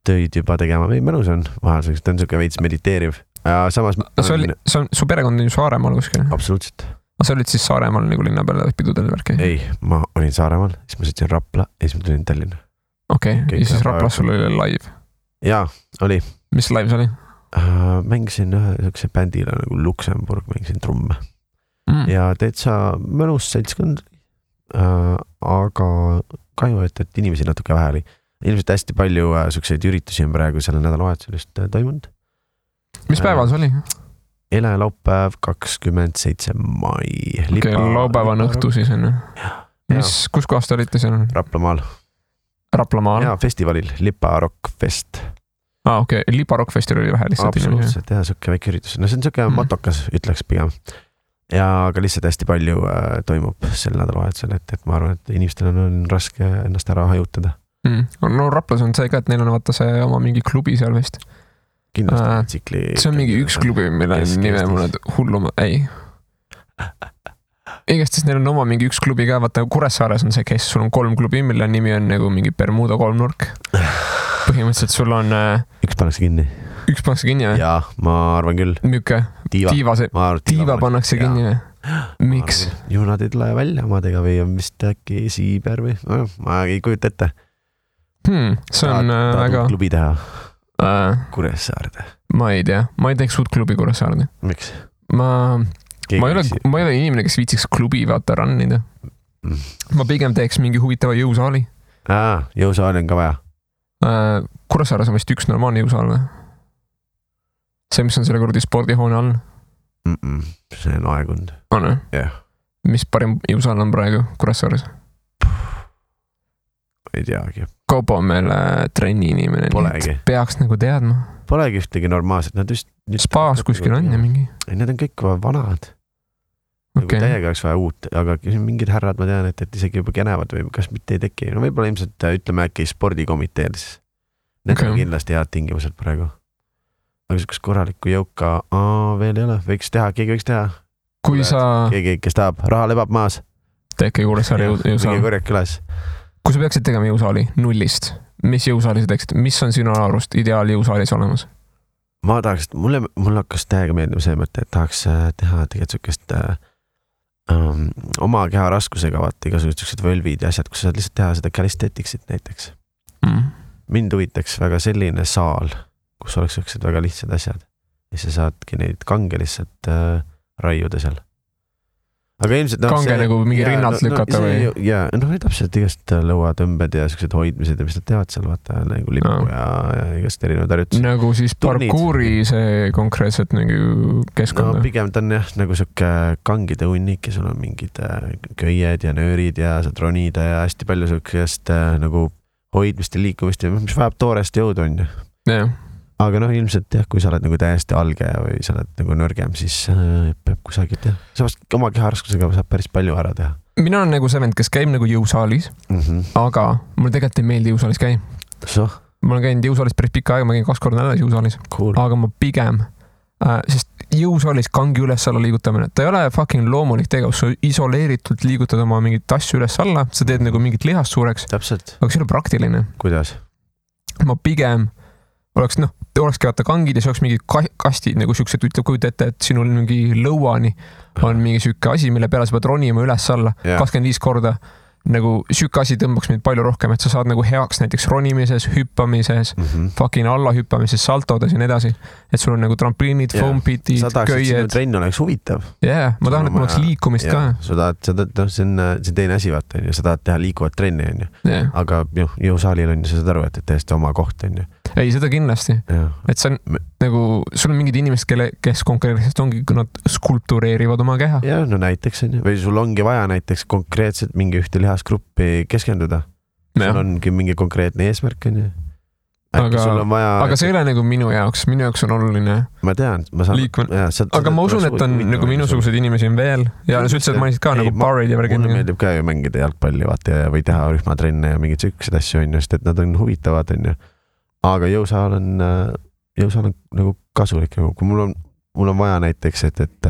töid juba tegema. Mõnus on vahel, ta on siuke veits mediteeriv. Samas... Su perekond on ju Saaremaal kuskil? Absoluutselt. Sa olid siis Saaremaal nagu linna peale pidudel värki? Ei, ma olin Saaremaal, siis ma sõitsin Rapla ja siis ma tulin Tallinna. Okei, ja siis Raplas sul oli live? Jaa, oli. Mis live see oli? Mängisin ühe bändile nagu Luxemburg, mängisin trumme. Ja täitsa mõnus seltskond, aga kahju, et inimesi natuke vähe oli. Ilmselt hästi palju sukseid üritusi on praegu selle nädalavahetusel toimunud. Mis päeval see oli? Eile laupäev 27. mai. Okei, laupäevan õhtu siis on. Kus kohast olite seal? Raplamaal. Raplamaal? Jaa, festivalil, Lipa Rock Fest. Okei, Lipa Rock Festival oli vähe lihtsalt. Absoluutselt, jah, suke väike üritus. No see on suke motokas, ütleks pigem. Ja aga lihtsalt hästi palju toimub sel nädalavahetusel, et ma arvan, et inimestel on raske ennast ära hajutada. No Raplas on see ka, et neil on vaata see oma mingi klubi seal vist. Kindlasti tsikli... See on mingi üks klubi, mille nime mulle hulluma... Ei. Igast siis neil on oma mingi üks klubi ka, vaata Kuressaares on see, kes sul on 3 klubi, mille nimi on nagu mingi Bermuda 3-nurk. Põhimõtteliselt sul on... Üks pannakse kinni. Üks pannakse kinni või? Jaa, ma arvan küll. Müüke? Tiiva pannakse kinni või? Miks? Ju nad ei tule välja omadega või on vist äkki Siiber või... Ma ei kujuta ette. See on väga... Klubi teha. Kuressaarde. Ma ei tea, ma ei teeks uut klubi Kuressaarde. Miks? Ma ei ole inimene, kes viitsiks klubi vaata rannida. Ma pigem teeks mingi huvitava jõusaali. Jõusaali on ka vaja. Kuressaares on vist üks normaalne jõusaal või? See, mis on selle kuradi spordihoone all? See on aegund. On või? Jah. Mis parim jõusaal on praegu Kuressaares? Ei teagi. Kaupo on meil trenni inimene. Polegi. Peaks nagu teadma. Polegi ühtegi normaalset. Nad just Spaas kuskil on ja mingi. Need on kõik vanad. Nagu täiega oleks vaja uut, aga mingid härrad ma tean, et isegi juba kenevad või kas mitte ei teki. No võib-olla ilmselt ütleme äkki spordikomiteed. Need on kindlasti head tingimused praegu. Aga siukest korralikku jõuka veel ei ole. Keegi võiks teha. Kui sa... Keegi, kes tahab, raha lebab maas. Tekke Kuressaare jõusaal. Mingi korjak üles. Kui sa peaksid tegema jõusaali nullist, mis jõusaali sa teeksid? Mis on sinu arust ideaal jõusaalis olemas? Ma tahaks, mulle hakkas täiega meeldima see mõte, et tahaks teha tegelikult sukest oma keha raskusega vaata igasugused siuksed völvid ja asjad, kus saad lihtsalt teha seda calisthenics'it näiteks. Mind huvitaks väga selline saal, kus oleks siuksed väga lihtsad asjad ja sa saadki neid kange lihtsalt raiuda seal. Aga ilmselt kange nagu mingi rinnalt lükata või? Ja täpselt igast lõuatõmbed ja siuksed hoidmised ja mis nad teevad seal vaata nagu lipu ja igast erinevad harjutused. Nagu siis parkuuri see konkreetselt nagu keskkond? No pigem ta on jah nagu siuke kangide hunnik ja sul on mingid köied ja nöörid ja saad ronida ja hästi palju siukest nagu hoidmist ja liikumist ja mis vajab toorest jõudu on ju. Jah. Aga ilmselt jah, kui sa oled nagu täiesti alge või sa oled nagu nõrgem, siis peab kusagilt jah. Samas oma keharaskusega saab päris palju ära teha. Mina olen nagu see vend, kes käib nagu jõusaalis, aga mulle tegelikult ei meeldi jõusaalis käi. Ma olen käinud jõusaalis päris pikka aega, ma käin 2 korda nädalas jõusaalis. Cool. Aga ma pigem, sest jõusaalis kangi üles-alla liigutamine, ta ei ole fucking loomulik tegevus, sa isoleeritult liigutad oma mingit asju üles-alla, sa teed nagu mingit lihast suureks. Täpselt. Aga see ei ole praktiline. Kuidas? Ma pigem olekski vaata kangid ja see oleks mingi kastid nagu siuksed, ütleb kujuta ette, et sinul mingi lõuani on mingi siuke asi, mille peale sa pead ronima üles-alla 25 korda. Nagu siuke asi tõmbaks mind palju rohkem, et sa saad nagu heaks näiteks ronimises, hüppamises, fucking alla hüppamises, saltodes ja nii edasi. Et sul on nagu trampliinid, foam pitid, köied. Sa tahaks, et sinu trenn oleks huvitav. Ma tahan, et mul oleks liikumist ka. See on teine asi vaata, sa tahad teha liikuvat trenni, aga jõusaalil on, sa saad aru, et täiesti oma koht on. Ei, seda kindlasti. Et see on nagu, sul on mingid inimesed, kes konkreetselt ongi, kui nad skulptureerivad oma keha. Ja, näiteks on. Või sul ongi vaja näiteks konkreetselt mingi ühte lihasgruppi keskenduda. Sul ongi mingi konkreetne eesmärk on. Aga see ei ole nagu minu jaoks on oluline. Ma tean, aga ma usun, et on nagu minusugused inimesi on veel ja sa ütlesid, et ma ka nagu barid ja mulle meeldib ka ju mängida jalgpalli vaata või teha rühmatrenne ja mingid sükksed asju on, sest et nad on huvitavad on. Aga jõusaal on nagu kasulik, kui mul on vaja näiteks, et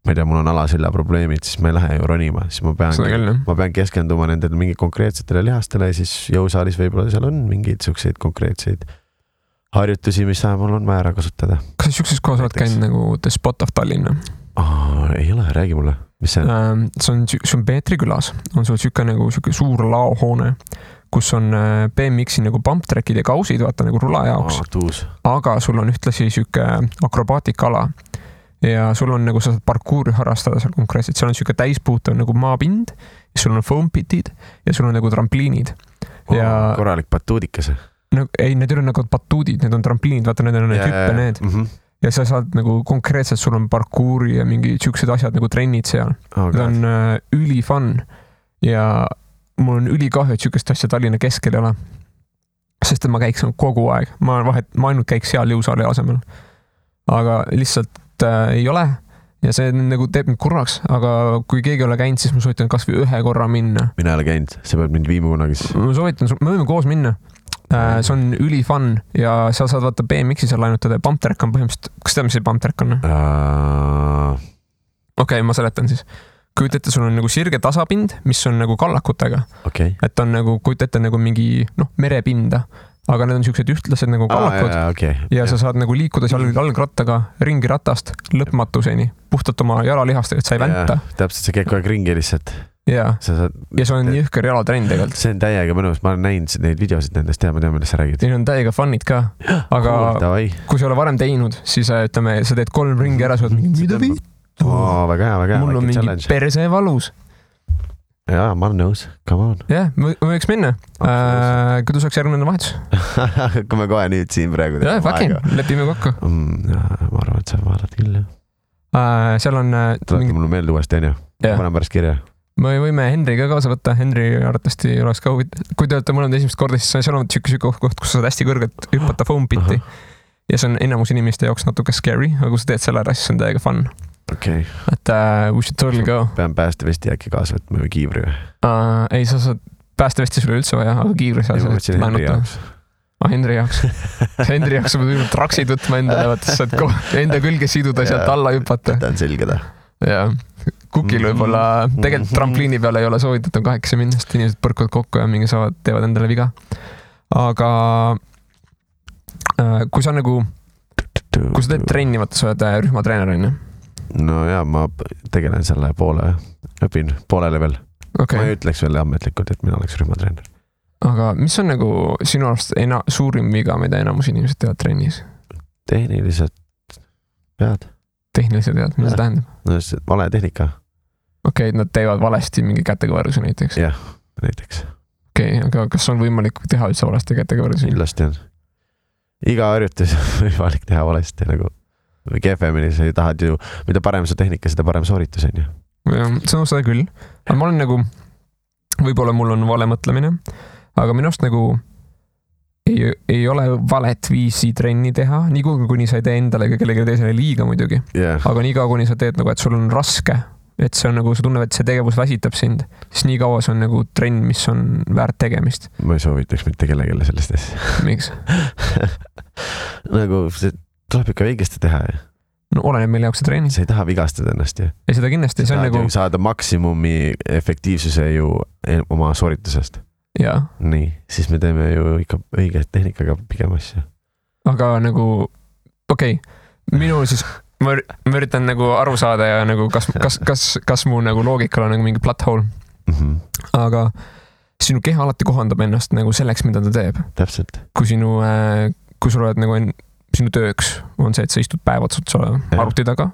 ma ei tea, mul on alaselja probleemid, siis ma ei lähe ju ronima, siis ma pean keskenduma nendele mingi konkreetsetele lihastele ja siis jõusaalis võib-olla seal on mingeid siukseid konkreetseid harjutusi, mis mul on vaja ära kasutada. Kas sa siukses kohas oled käinud nagu The Spot of Tallinn? Ei ole, räägi mulle, mis see on? See on Peetri külas, on sul siuke suur laohoone, kus on BMX-i nagu bump trackid ja kausid, vaata nagu rula jaoks. Aga sul on ühtlasi siuke akrobaatikala ja sul on nagu sa saad parkuuri harrastada seal konkreetselt. Seal on siuke täispuutav nagu maapind ja sul on foam pitid ja sul on nagu trampliinid. Korralik batuudikas. Ei, need ei ole nagu batuudid, need on trampliinid, vaata need on need hüppe need. Ja sa saad nagu konkreetselt, sul on parkuuri ja mingi siuksed asjad nagu trennid seal. Need on üli fun ja mul on ülikahju, et siukest asja Tallinna keskel ei ole. Sest et ma käiks kogu aeg. Ma ainult käiks seal jõusaali asemel. Aga lihtsalt ei ole ja see nagu teeb mind kurvaks, aga kui keegi ei ole käinud, siis ma soovitan kas või 1 korra minna. Mina ei ole käinud, sa pead mind viima kunagi. Ma soovitan, me võime koos minna. See on üli fun ja sa saad vaata BMX-i seal lainutada ja bump track on põhimõtteliselt, kas tead, mis see bump track on? Okei, ma seletan siis. Kujuta ette, sul on nagu sirge tasapind, mis on nagu kallakutega. Et on nagu, kujuta ette nagu mingi merepinda, aga need on siuksed ühtlased nagu kallakud ja sa saad nagu liikuda seal jalgrattaga ringi ratast lõpmatuseni, puhtalt oma jalalihastega, et sa ei vänta. Täpselt, sa käid kogu aeg ringi lihtsalt. Ja see on jõhker jalatrenn tegelikult. See on täiega mõnus, ma olen näinud neid videosid nendest ja ma tean, millest sa räägid. Neil on täiega fun'id ka, aga kui sa ole varem teinud, siis ütleme, sa teed 3 ringi ära, sa oled mingi mida viid? Väga hea. Mul on mingi perse valus. Jaa, ma olen nõus. Come on. Jah, me võiks minna. Kuidas oleks järgmine vahetus? Kui me kohe nüüd siin praegu teeme fucking, lepime kokku. Ma arvan, et sa vaatad küll, jah. Seal on... Tulete mulle meelde uuesti, on ju? Ma panen pärast kirja. Me võime Henri ka kaasa võtta. Henri arvatavasti oleks ka huvitav. Kui te olete mõlemad esimest korda, siis seal on siuke koht, kus sa saad hästi kõrgelt hüppata foam piti. Ja see on enamus inimeste jaoks natuke scary, aga kui sa teed selle ära, siis on täiega fun. Okay. Et we should totally go. Pean päästevesti äkki kaasa võtma või kiivri või? Ei, sa saad päästevesti sulle üldse vaja, aga kiivri sa saad laenuta. Henri jaoks. Henri jaoks sa pead traksid võtma endale, sa saad enda külge siduda ja sealt alla hüppata. Ta on selge ta. Ja kukil võib-olla, tegelikult trampliini peale ei ole soovitatud 8 minna, sest inimesed põrkuvad kokku ja mingi teevad endale viga. Aga kui sa teed trenni, vaata sa oled rühmatreener, on ju? No jaa, ma tegelen selle poole õpin poolele veel okay. Ma ei ütleks veel ametlikult, et mina oleks rühmatreener. Aga mis on nagu sinu arust suurim viga, mida enamus inimesed teevad trennis? Tehnilised pead. Tehnilised pead, mida see tähendab? No vale tehnika. Okei, nad teevad valesti mingi kätekõveruse näiteks? Jah, näiteks. Okei, aga kas on võimalik teha üldse valesti kätekõveruse? Kindlasti on. Iga harjutus on võimalik teha valesti nagu või kehvemini, sa tahad ju, mida parem su tehnika, seda parem sooritus on ju. See on seda küll. Aga ma olen nagu, võib-olla mul on vale mõtlemine, aga minu arust nagu ei ole valet viisi trenni teha, nii kuni sa ei tee endale ega kellegi teisele liiga muidugi. Aga nii kaua, kuni sa teed nagu, et sul on raske, et see on nagu, sa tunned, et see tegevus väsitab sind, siis nii kaua see on nagu trenn, mis on väärt tegemist. Ma ei soovitaks mitte kellegile sellest asja. Miks? Nagu see tuleb ikka õigesti teha. No oleneb meil jaoks see treening. Sa ei taha vigastada ennast ju. Ei seda kindlasti. See on nagu saada maksimumi efektiivsuse ju oma sooritusest. Jaa. Nii, siis me teeme ju ikka õige tehnikaga pigem asja. Aga nagu, okei, minu siis, ma üritan nagu aru saada ja nagu kas mu nagu loogikal on nagu mingi plot hole. Aga sinu keha alati kohandab ennast nagu selleks, mida ta teeb. Täpselt. Kui sul oled nagu sinu tööks on see, et sa istud päevad arvuti taga,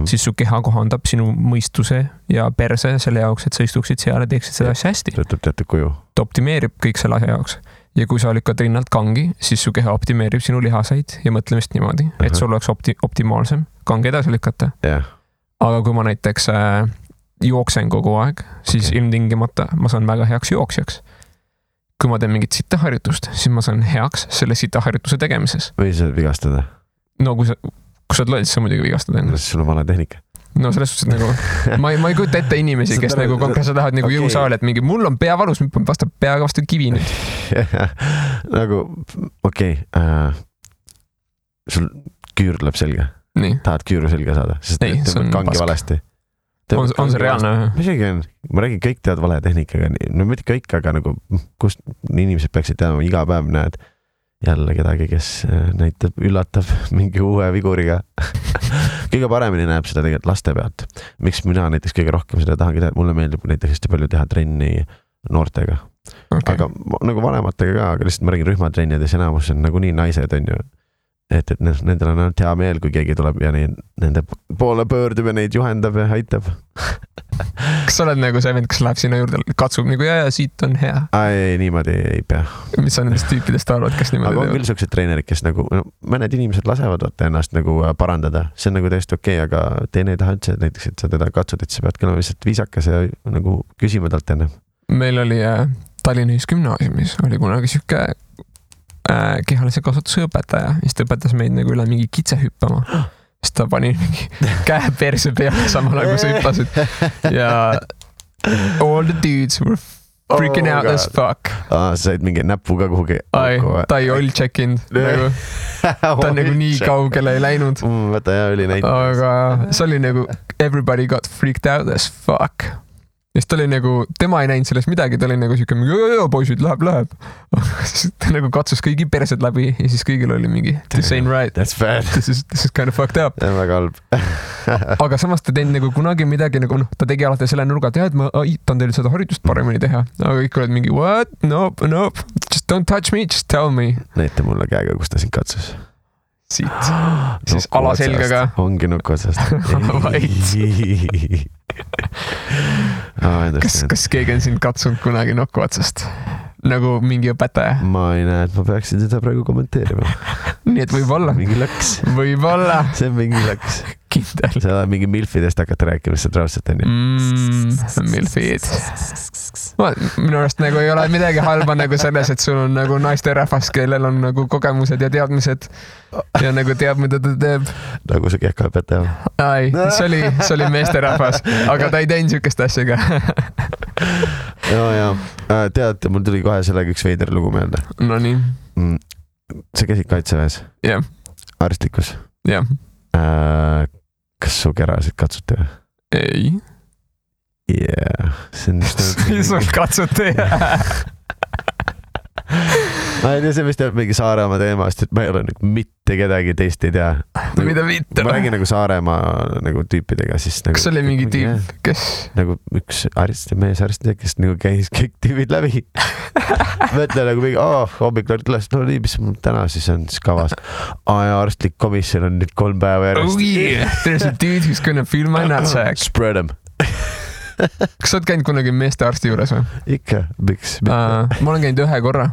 siis su keha kohandab sinu mõistuse ja perse selle jaoks, et sa istuksid seal ja teeksid seda asja hästi. Võtab teatud kuju. Ta optimeerib kõik selle asja jaoks. Ja kui sa lükkad rinnalt kangi, siis su keha optimeerib sinu lihaseid ja mõtlemist niimoodi, et sul oleks optimaalsem kangi edasi lükata. Aga kui ma näiteks jooksen kogu aeg, siis ilmtingimata ma saan väga heaks jooksjaks. Kui ma teen mingit sitaharjutust, siis ma saan heaks selle sitaharjutuse tegemises. Või sa vigastada? No kui sa loed, siis sa muidugi vigastada enne. Sul on vale tehnika. No selles suhtes nagu, ma ei kujuta ette inimesi, kes nagu konkreetselt tahavad nagu jõusaali, et mingi mul on pea valus, vastab peaga vastu kivi nüüd. Nagu, okei, sul küür tuleb selga. Tahad küüru selga saada, sest tõmbad kangi valesti. On see reaalne? Misegi on, ma räägin, kõik teavad vale tehnikaga, no mitte kõik, aga nagu kust inimesed peaksid teadma, iga päev näed jälle kedagi, kes näitab, üllatab mingi uue viguriga. Kõige paremini näeb seda tegelikult laste pealt. Miks mina näiteks kõige rohkem seda tahangi teha, mulle meeldib näiteks hästi palju teha trenni noortega. Aga nagu vanematega ka, aga lihtsalt ma räägin rühmatrennides enamus on nagu nii naised on ju. Et nendel on ainult hea meel, kui keegi tuleb ja nende poole pöördub ja neid juhendab ja aitab. Kas sa oled nagu see vend, kes läheb sinna juurde, katsub nagu ja siit on hea? Ei, niimoodi ei pea. Mis sa nendest tüüpidest arvad, kes niimoodi teevad? Aga on küll sellised treenerid, kes nagu, mõned inimesed lasevad ennast nagu parandada. See on nagu täiesti okei, aga teine ei taha üldse näiteks, et sa teda katsud, et sa pead kõlema lihtsalt viisakas ja nagu küsima talt enne. Meil oli Tallinna Ühisgümnaasiumis oli kunagi siuke kehalise kasvatuse õpetaja, siis ta õpetas meid nagu üle mingi kitse hüppama. Siis ta pani mingi käe perse peale samal nagu sa hüppasid. Ja all the dudes were freaking out as fuck. Sa said mingi näpuga kuhugi. Ta ei all check-in. Ta on nagu nii kaugele ei läinud. Võta ja oli näinud. Aga see oli nagu everybody got freaked out as fuck. Ja siis ta oli nagu, tema ei näinud sellest midagi, ta oli nagu siuke, poisid, läheb. Ta nagu katsus kõigi persed läbi ja siis kõigil oli mingi, this ain't right. That's bad. This is kind of fucked up. See on väga halb. Aga samas ta teinud nagu kunagi midagi, nagu ta tegi alati selle nurga, et ma aitan teil seda harjutust paremini teha. Aga kõik olid mingi, what? Nope. Just don't touch me, just tell me. Näite mulle käega, kus ta sind katsus. Siit. Siis alaselgaga. Ongi nukku otsast. Kas keegi on sind katsunud kunagi nokku otsast? Nagu mingi õpetaja? Ma ei näe, et ma peaksin seda praegu kommenteerima. Nii et võib-olla. Mingi lõks. Võib-olla. See on mingi lõks. Kindel. Sa oled mingi milfidest hakata rääkima, see trausselt on ju. Milfid. Minu arust nagu ei ole midagi halba nagu selles, et sul on nagu naiste rahvas, kellel on nagu kogemused ja teadmised ja nagu teab, mida ta teeb. Nagu see kehkaõpetaja. Ai, see oli meeste rahvas, aga ta ei teinud siukest asja ka. Ja. Tead, mul tuli kohe sellega üks veider lugu meelde. No nii. Sa käisid kaitseväes? Jah. Arstlikus? Jah. Kas su kerasid katsuti või? Ei. Yeah. See on just... Sul katsuti? ma ei tea, see vist jääb mingi Saaremaa teemast, et ma ei ole nagu mitte kedagi teist ei tea. Mida mitte? Ma räägin nagu Saaremaa nagu tüüpidega, siis nagu... Kas oli mingi tüüp, kes? Nagu üks mees arstid, kes nagu käis kõik tüübid läbi. Mõtle nagu mingi, hommikul üles, no nii, mis mul täna siis on siis kavas. Ja arstlik komisjon on nüüd 3 päeva järjest. Oh yeah, there's a dude who's gonna feel my nutsack. Spread them. Kas sa oled käinud kunagi meeste arsti juures või? Ikka, miks? Ma olen käinud 1 korra.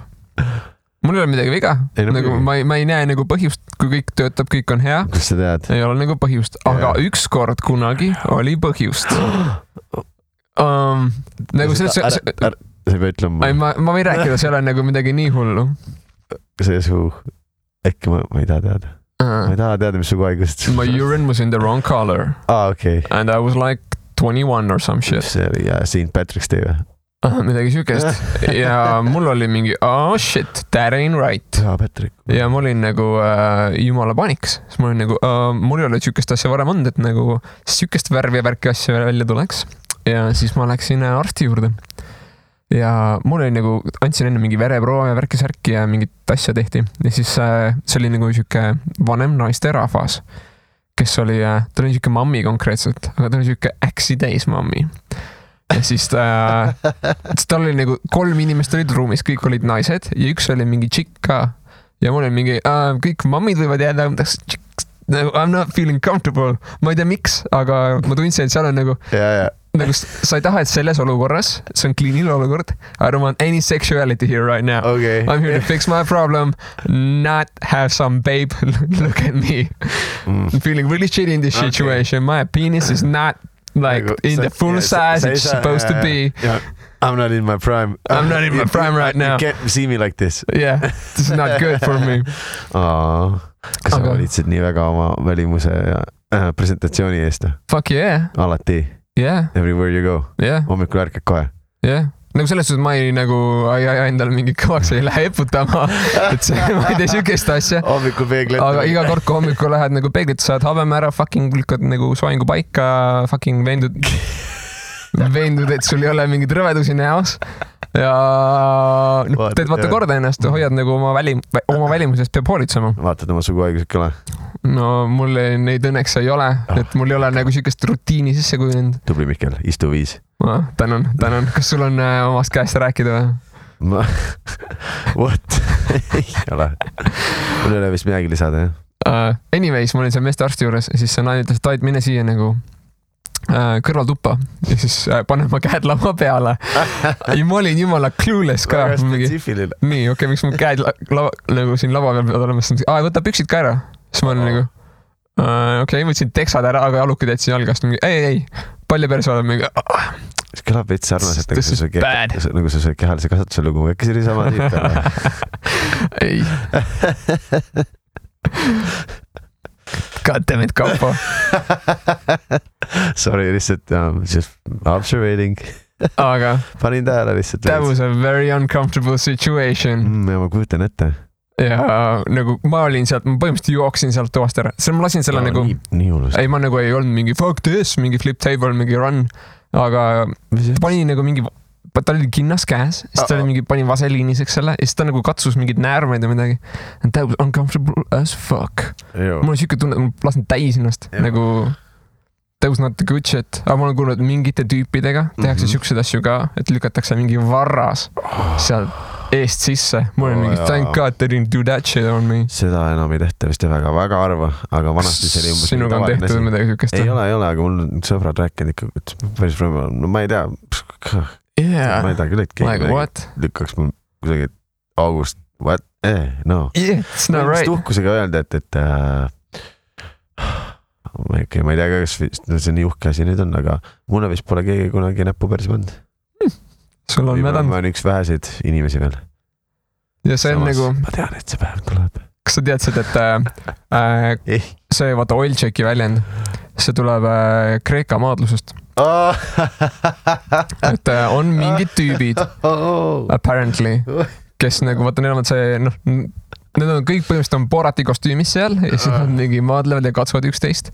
Mul ei ole midagi viga. Nagu, ma ei näe nagu põhjust, kui kõik töötab, kõik on hea. Kus sa tead? Ei ole nagu põhjust. Aga üks kord kunagi oli põhjust. Nagu sa ei pea ütlema. Ma võin rääkida, see ole nagu midagi nii hullu. See su... Äkki ma ei taha teada. Ma ei taha teada, mis su haigust. My urine was in the wrong color. Okay. And I was like 21 or some shit. See oli St. Patrick's Day või? Midagi sükest. Ja mul oli mingi, shit, that ain't right. Patrick. Ja ma olin nagu jumala paniks. Siis ma olin nagu, mul ei ole sükest asja varem olnud, et nagu sükest värvi ja värki asja välja tuleks. Ja siis ma läksin arsti juurde. Ja mul oli nagu, andsin enne mingi vereproova ja värki-särki ja mingit asja tehti. Ja siis see oli nagu süke vanem naiste rahvas, kes oli, ta oli süke mammi konkreetselt, aga ta oli süke äksi täis mammi. Ja siis ta oli nagu 3 inimest olid ruumis, kõik olid naised ja üks oli mingi tšikk ka. Ja mul oli mingi, kõik mammid võivad jääda, I'm not feeling comfortable. Ma ei tea miks, aga ma tundsin, et seal on nagu... Nagu sa ei taha, et selles olukorras, see on kliiniline olukord, I don't want any sexuality here right now. Okay. I'm here to fix my problem, not have some babe look at me. I'm feeling really shitty in this situation. My penis is not like in the full size it's supposed to be. Yeah. I'm not in my prime. I'm not in my prime right now. You can't see me like this. Yeah, this is not good for me. Kas sa valitsid nii väga oma välimuse ja presentatsiooni eest? Fuck yeah. Alati. Yeah. Everywhere you go. Yeah. Hommikul ärkad kohe. Yeah. Nagu selles suhtes ma ei nagu endale mingi kõvaks ei lähe eputama, et see, ma ei tee sükest asja. Hommikul peeglit. Aga iga kord, kui hommikul lähed nagu peeglit, saad habeme ära, fucking lükkad nagu soengu paika, fucking veendud, et sul ei ole mingid rõvedusi näos. Ja teed vaata korda ennast, hoiad nagu oma välimusest peab hoolitsema. Vaatad oma suguhaigused kõle? No mul neid õnneks ei ole, et mul ei ole nagu sükest rutiini sisse kujunenud. Tubli Mihkel, istu 5. Tänan. Kas sul on omast käest rääkida või? What? Ei ole. Mul ei ole vist midagi lisada, jah? Anyways, ma olin seal meeste arsti juures ja siis see naine ütles, et aid mine siia nagu kõrvaltuppa ja siis panen ma käed lava peale ja ma olin jumala clueless ka. Väga spetsiifiline. Nii, okei, miks mu käed nagu siin lava peal peavad olema, siis võta püksid ka ära. Siis ma olin nagu, okei, võtsin teksad ära, aga jalukid jätsin jalgast. Ei, palju perse oled mingi. See kõlab veits sarnaselt, nagu see kehalise kasvatuse lugu. Äkki see oli sama tüüp peale? Ei. God damn it, Kaupo. Sorry, lihtsalt just observating. Aga panin tähele lihtsalt. That was a very uncomfortable situation. Ja ma kujutan ette. Ja nagu ma olin sealt, ma põhimõtteliselt jooksin sealt toast ära. Ma lasin selle nagu... Nii hullust. Ei, ma nagu ei olnud mingi fuck this, mingi flip table, mingi run. Aga ta pani nagu mingi... Ta oli kinnas käes, siis ta oli mingi, pani vaseliiniseks selle ja siis ta nagu katsus mingid näärmeid ja midagi. And that was uncomfortable as fuck. Mul on siuke tunne, et ma lasin täis ennast. Nagu that was not the good shit. Aga ma olen kuulnud mingite tüüpidega, tehakse siukseid asju ka, et lükatakse mingi varras seal eest sisse. Mul on mingi thank God they didn't do that shit on me. Seda enam ei tehta vist väga harva, aga vanasti see oli umbes... Sinuga on tehtud midagi siukest? Ei ole, aga mul on sõbrad rääkinud ikka, et päris võimalik. No ma ei tea... Yeah. Ma ei tea küll, et keegi lükkaks mul kusagil august. What? No. Yeah, it's not right. Tuhkusega öelda, et ma ei tea, kas see nii uhke asi nüüd on, aga mulle vist pole keegi kunagi näppu perse pannud. Sul on mädanud. Ma olen üks väheseid inimesi veel. Ja see on nagu... Ma tean, et see päev tuleb. Kas sa teadsid, et see vaata oil checki väljend, see tuleb Kreeka maadlusest. Et on mingid tüübid apparently, kes nagu vaata, neil on see, need on kõik põhimõtteliselt on Borati kostüümis seal ja siis nad mingi maadlevad ja katsuvad üksteist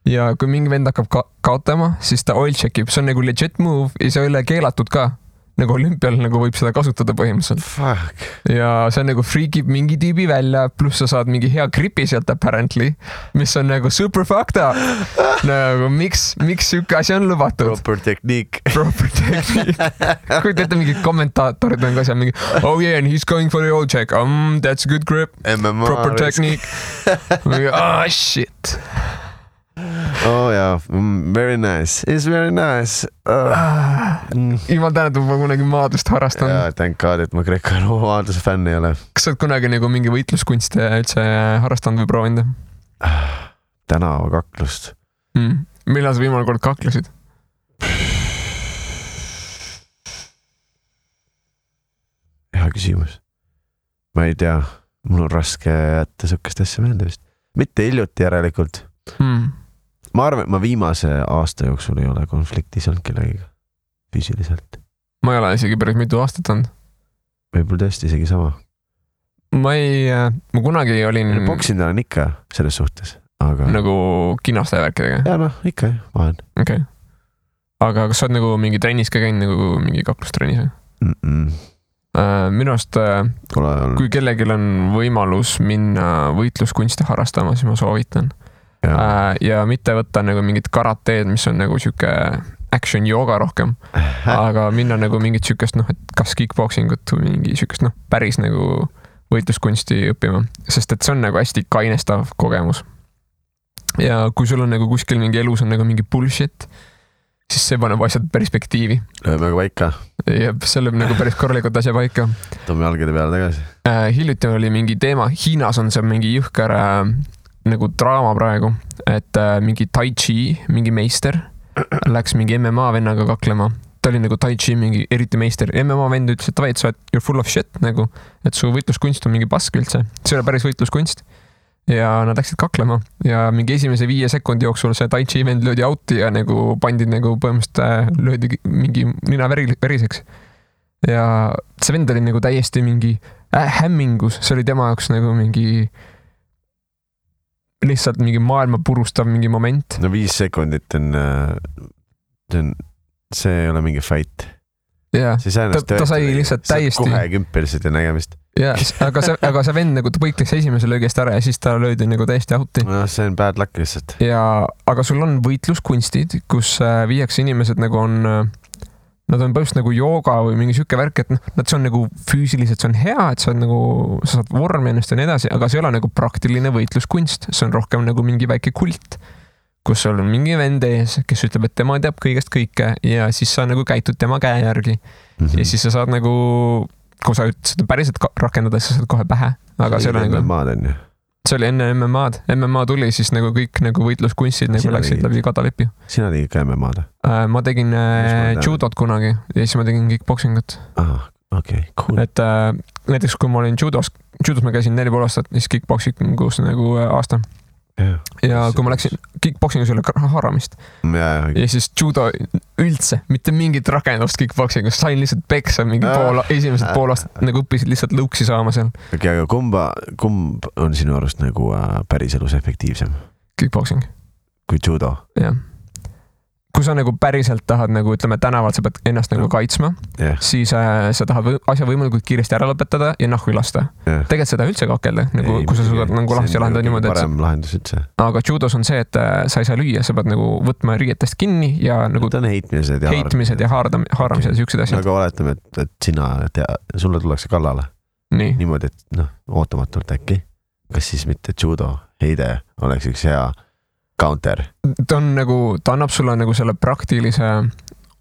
ja kui mingi vend hakkab kaotama, siis ta oil checkib, see on nagu legit move ja see ei ole keelatud ka. nagu olümpial nagu võib seda kasutada põhimõtteliselt. Fuck. Ja see nagu freakib mingi tüübi välja, pluss sa saad mingi hea gripi sealt apparently, mis on nagu super fucked up. Nagu miks siuke asi on lubatud? Proper technique. Kuid ette mingid kommentaatorid on ka seal mingi oh yeah, and he's going for the old check. That's a good grip. MMA proper technique. Oh shit. Oh yeah, very nice. It's very nice. Jumal tänud, ma kunagi maadlust harrastan. Jaa, thank God, et ma Greco-Rooma maadluse fänn ei ole. Kas sa oled kunagi nagu mingi võitluskunste üldse harrastanud või proovinud? Tänavakaklust. Millal sa viimane kord kaklesid? Hea küsimus. Ma ei tea, mul on raske jätta sukest asja meelde vist. Mitte hiljuti järelikult. Ma arvan, et ma viimase aasta jooksul ei ole konfliktis olnud kellegiga füüsiliselt. Ma ei ole isegi päris mitu aastat olnud. Võib-olla tõesti isegi sama. Ma kunagi olin... Boksin olen ikka selles suhtes, aga... Nagu kinaste värkidega? Jaa, noh, ikka vahen. Okay. Aga kas sa oled nagu mingi trennis ka käinud, nagu mingi kaklustrennis? Minu arust, kui kellelgi on võimalus minna võitluskunste harrastama, siis ma soovitan. Ja mitte võtta nagu mingit karateed, mis on nagu siuke action jooga rohkem, aga minna nagu mingit siukest, et kas kickboxingut või mingi siukest, päris nagu võitluskunsti õppima, sest et see on nagu hästi kainestav kogemus. Ja kui sul on nagu kuskil mingi elus on nagu mingi bullshit, siis see paneb asjad perspektiivi. Lööme aga paika. Ja see lööb nagu päris korralikult asja paika. Toome jalgade peale tagasi. Hiljuti oli mingi teema, Hiinas on see mingi jõhker nagu draama praegu, et mingi tai chi, mingi meister läks mingi MMA vennaga kaklema. Ta oli nagu tai chi mingi eriti meister. MMA vend ütles, et sa oled you're full of shit nagu, et su võitluskunst on mingi pask üldse. See oli päris võitluskunst. Ja nad läksid kaklema ja mingi esimese 5 sekundi jooksul see tai chi vend löödi outi ja nagu pandi nagu põhimõtteliselt löödi mingi nina veriseks. Ja see vend oli nagu täiesti mingi hämmingus. See oli tema jaoks nagu mingi lihtsalt mingi maailma purustav mingi moment. No 5 sekundit see ei ole mingi fight. Jaa, ta sai lihtsalt täiesti... Kohe kümpeliselt ja nägemist. Jaa, aga see vend nagu ta põikles esimese löögist ära ja siis ta löödi nagu täiesti outi. No see on bad luck lihtsalt. Aga sul on võitluskunstid, kus viiakse inimesed nagu on... Nad on põhimõtteliselt nagu jooga või mingi siuke värk, et nad see on nagu füüsiliselt, see on hea, et sa saad vormi ennast ja nii edasi, aga see ei ole nagu praktiline võitluskunst. See on rohkem nagu mingi väike kult, kus sul on mingi vend ees, kes ütleb, et tema teab kõigest kõike ja siis sa nagu käitud tema käe järgi. Ja siis sa saad nagu, kui sa seda päriselt rakendada, siis sa saad kohe pähe. Aga see oli nagu... See oli enne MMA-d. MMA tuli, siis nagu kõik nagu võitluskunstid nagu läksid läbi kadalipi. Sina tegid ka MMA-d? Ma tegin judot kunagi ja siis ma tegin kickboxingut. Okay, cool. Et näiteks kui ma olin judos ma käisin 4,5 aastat, siis kickboxingus nagu aasta. Ja kui ma läksin kickboxingus üle haaramist ja siis judo üldse, mitte mingit rakendust kickboxingus, sain lihtsalt peksa mingi esimesed pool aastat nagu õppisid lihtsalt lõuksi saama seal. Okay, aga kumb on sinu arust nagu päris elus efektiivsem? Kickboxing. Kui judo? Jah. Kui sa nagu päriselt tahad nagu, ütleme, tänavalt sa pead ennast nagu kaitsma, siis sa tahad asja võimalikult kiiresti ära lõpetada ja nahku lasta. Tegelikult seda üldse kakelda, nagu, kui sa suudad nagu lahti lahendada niimoodi. Parem lahendus üldse. Aga judos on see, et sa ei saa lüüa, sa pead nagu võtma riietest kinni ja nagu ta on heitmised ja haaramised ja siuksed asjad. Aga oletame, et sulle tullakse kallale. Niimoodi, et ootamatult äkki. Kas siis mitte judo heide oleks üks hea counter. Ta annab sulle nagu selle praktilise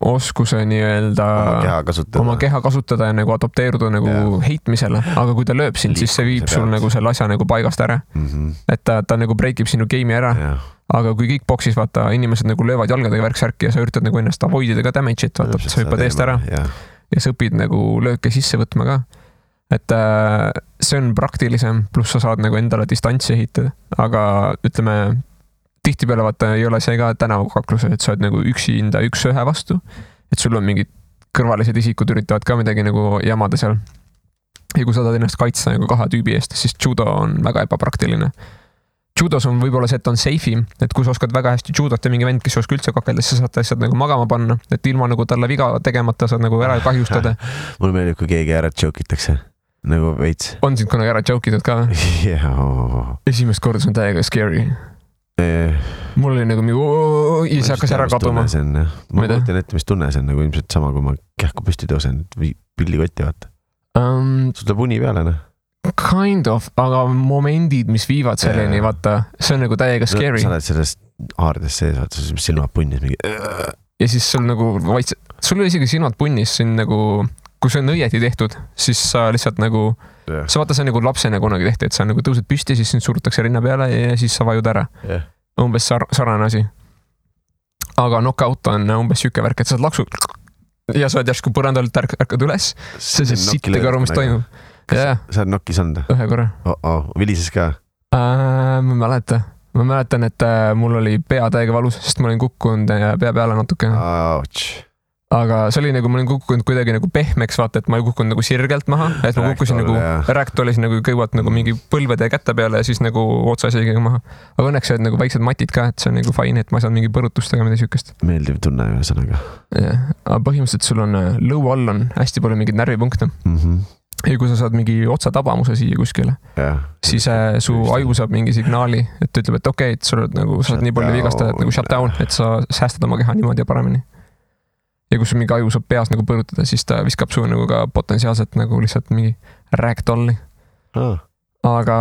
oskuse nii-öelda oma keha kasutada ja nagu adopteeruda nagu heitmisele, aga kui ta lööb sind, siis see viib sul nagu selle asja nagu paigast ära. Et ta nagu breakib sinu game'i ära, aga kui kickboxis vaata, inimesed nagu löövad jalgadega värksärki ja sa üritad nagu ennast avoidida ka damage'it, vaata, sa hüppad eest ära ja sa õpid nagu lööke sisse võtma ka. Et see on praktilisem, pluss sa saad nagu endale distantsi ehitada, aga ütleme tihtipeale vaata ei ole see ka tänavakakluse, et sa oled nagu üksinda üks-ühe vastu, et sul on mingid kõrvalised isikud üritavad ka midagi nagu jamada seal. Ja kui sa tahad ennast kaitsta nagu 2 tüübi eest, siis judo on väga ebapraktiline. judos on võib-olla see, et on safe'im, et kui sa oskad väga hästi judot ja mingi vend, kes oskab üldse kakelda, siis sa saad lihtsalt nagu magama panna, et ilma nagu talle viga tegemata saad nagu ära kahjustada. Mulle meeldib, kui keegi ära joke itakse, nagu veits. On sind kunagi ära joke itud ka? Esimest korda see on täiega scary. Mul oli nagu mingi, see hakkas ära kaduma. Ma mõtlen ette, mis tunne see on, nagu ilmselt sama, kui ma kähku püsti tõusen, pillikotti vaata. Sul tuleb uni peale, noh? Kind of, aga momendid, mis viivad selleni, vaata, see on nagu täiega scary. Sa oled sellest haardes sees, vaata, silmad punnis mingi. Ja siis sul nagu sul oli isegi silmad punnis, siin nagu, kui see on õieti tehtud, siis sa lihtsalt nagu, sa vaata, see on nagu lapsena kunagi tehti, et sa nagu tõused püsti, siis sind surutakse rinna peale ja siis sa vajud ära. Umbes sarnane asi. Aga knockout on umbes siuke värk, et sa oled laksu ja sa oled järsku põrandalt ärkad üles, see sittega aru, mis toimub. Sa oled nokkis olnud? Ühe korra. Vilises ka? Ma mäletan, et mul oli pea täiega valus, sest ma olin kukkunud pea peale natuke. Aga see oli nagu, ma olin kukkunud kuidagi nagu pehmeks, vaata, et ma ei kukkunud nagu sirgelt maha, et ma kukkusin nagu, rääktolis nagu kõivat nagu mingi põlvede kätte peale ja siis nagu otsa isegi maha. Aga õnneks olid nagu väiksed matid ka, et see on nagu fine, et ma saan mingi põrutustega mida siukest. Meeldiv tunne ühesõnaga. Aga põhimõtteliselt sul on lõu all on hästi palju mingid närvipunkte. Ja kui sa saad mingi otsatabamuse siia kuskile, siis su aju saab mingi signaali, et ütleb, et okei, et sul nagu, sa oled nii palju vigastada, et nagu shut down, et sa säästad oma keha niimoodi ja paremini. Ja kui sul mingi aju saab peas nagu põrutada, siis ta viskab su nagu ka potentsiaalselt nagu lihtsalt mingi ragdolli. Aga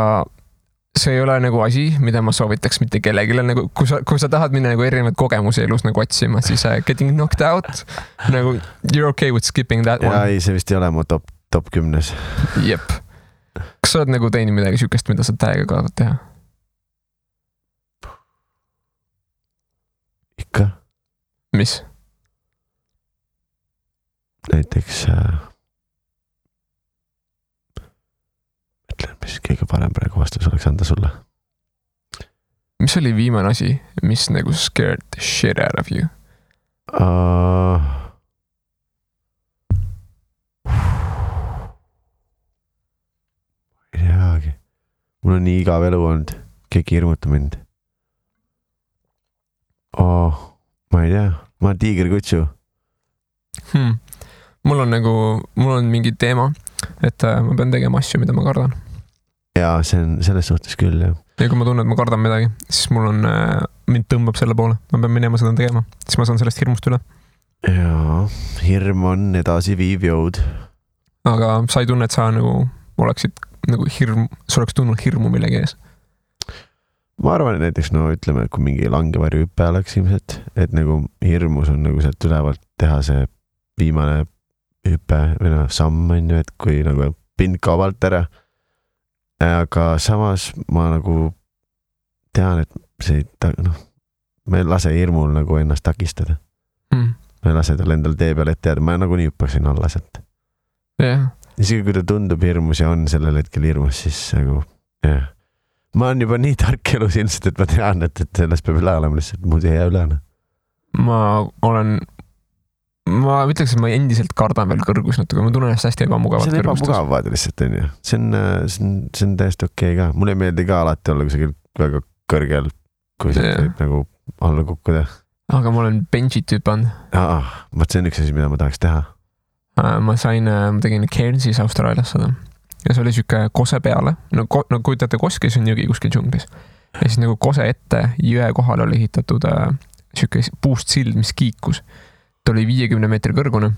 see ei ole nagu asi, mida ma soovitaks mitte kellegile, nagu kui sa tahad minna nagu erinevaid kogemusi elus nagu otsima, siis getting knocked out, nagu you're okay with skipping that one. Ei, see vist ei ole mu top 10. Jep. Kas sa oled nagu teinud midagi siukest, mida sa täiega kaadad teha? Ikka. Mis? Näiteks ütlen, mis kõige parem praegu vastus oleks anda sulle. Mis oli viimane asi, mis nagu scared the shit out of you? Ei teagi. Mul on nii igav elu olnud. Keegi hirmuta mind. Ma ei tea. Ma olen tiigerkutsu. Mul on mingi teema, et ma pean tegema asju, mida ma kardan. Jaa, see on selles suhtes küll, jah. Ja kui ma tunnen, et ma kardan midagi, siis mind tõmbab selle poole. Ma pean minema seda tegema, siis ma saan sellest hirmust üle. Jaa, hirm on edasi viiv jõud. Aga sa ei tunne, et sa nagu oleksid nagu sa oleks tundnud hirmu millegi ees? Ma arvan, et näiteks, ütleme, kui mingi langevarju hüppe oleks ilmselt, et nagu hirmus on nagu sealt ülevalt teha see viimane hüppe või samm on ju, et kui nagu pind kaobalt ära. Aga samas ma nagu tean, et see ma ei lase hirmul nagu ennast takistada. Ma ei lase tal endal tee peal ette jääda, ma nagu nii hüppaksin alla sealt. Isegi kui ta tundub hirmus ja on sellel hetkel hirmus, siis nagu ma olen juba nii tark elus ilmselt, et ma tean, et sellest peab üle olema lihtsalt, muud ei jää üle. Ma ütleks, et ma endiselt kardan veel kõrgus natuke, ma tunnen ennast hästi ebamugavalt kõrgustes. See on ebamugav lihtsalt, on ju. See on täiesti okei ka. Mulle ei meeldi ka alati olla kusagil väga kõrgel, kui see võib nagu alla kukkuda. Aga ma olen benchit hüpanud. See on üks asi, mida ma tahaks teha. Ma tegin Cairnsis Austraalias seda ja see oli siuke kose peale, kujutate Koskis on jõgi kuskil džunglis ja siis nagu kose ette jõe kohal oli ehitatud siuke puust sild, mis kiikus. Ta oli 50 meetri kõrgune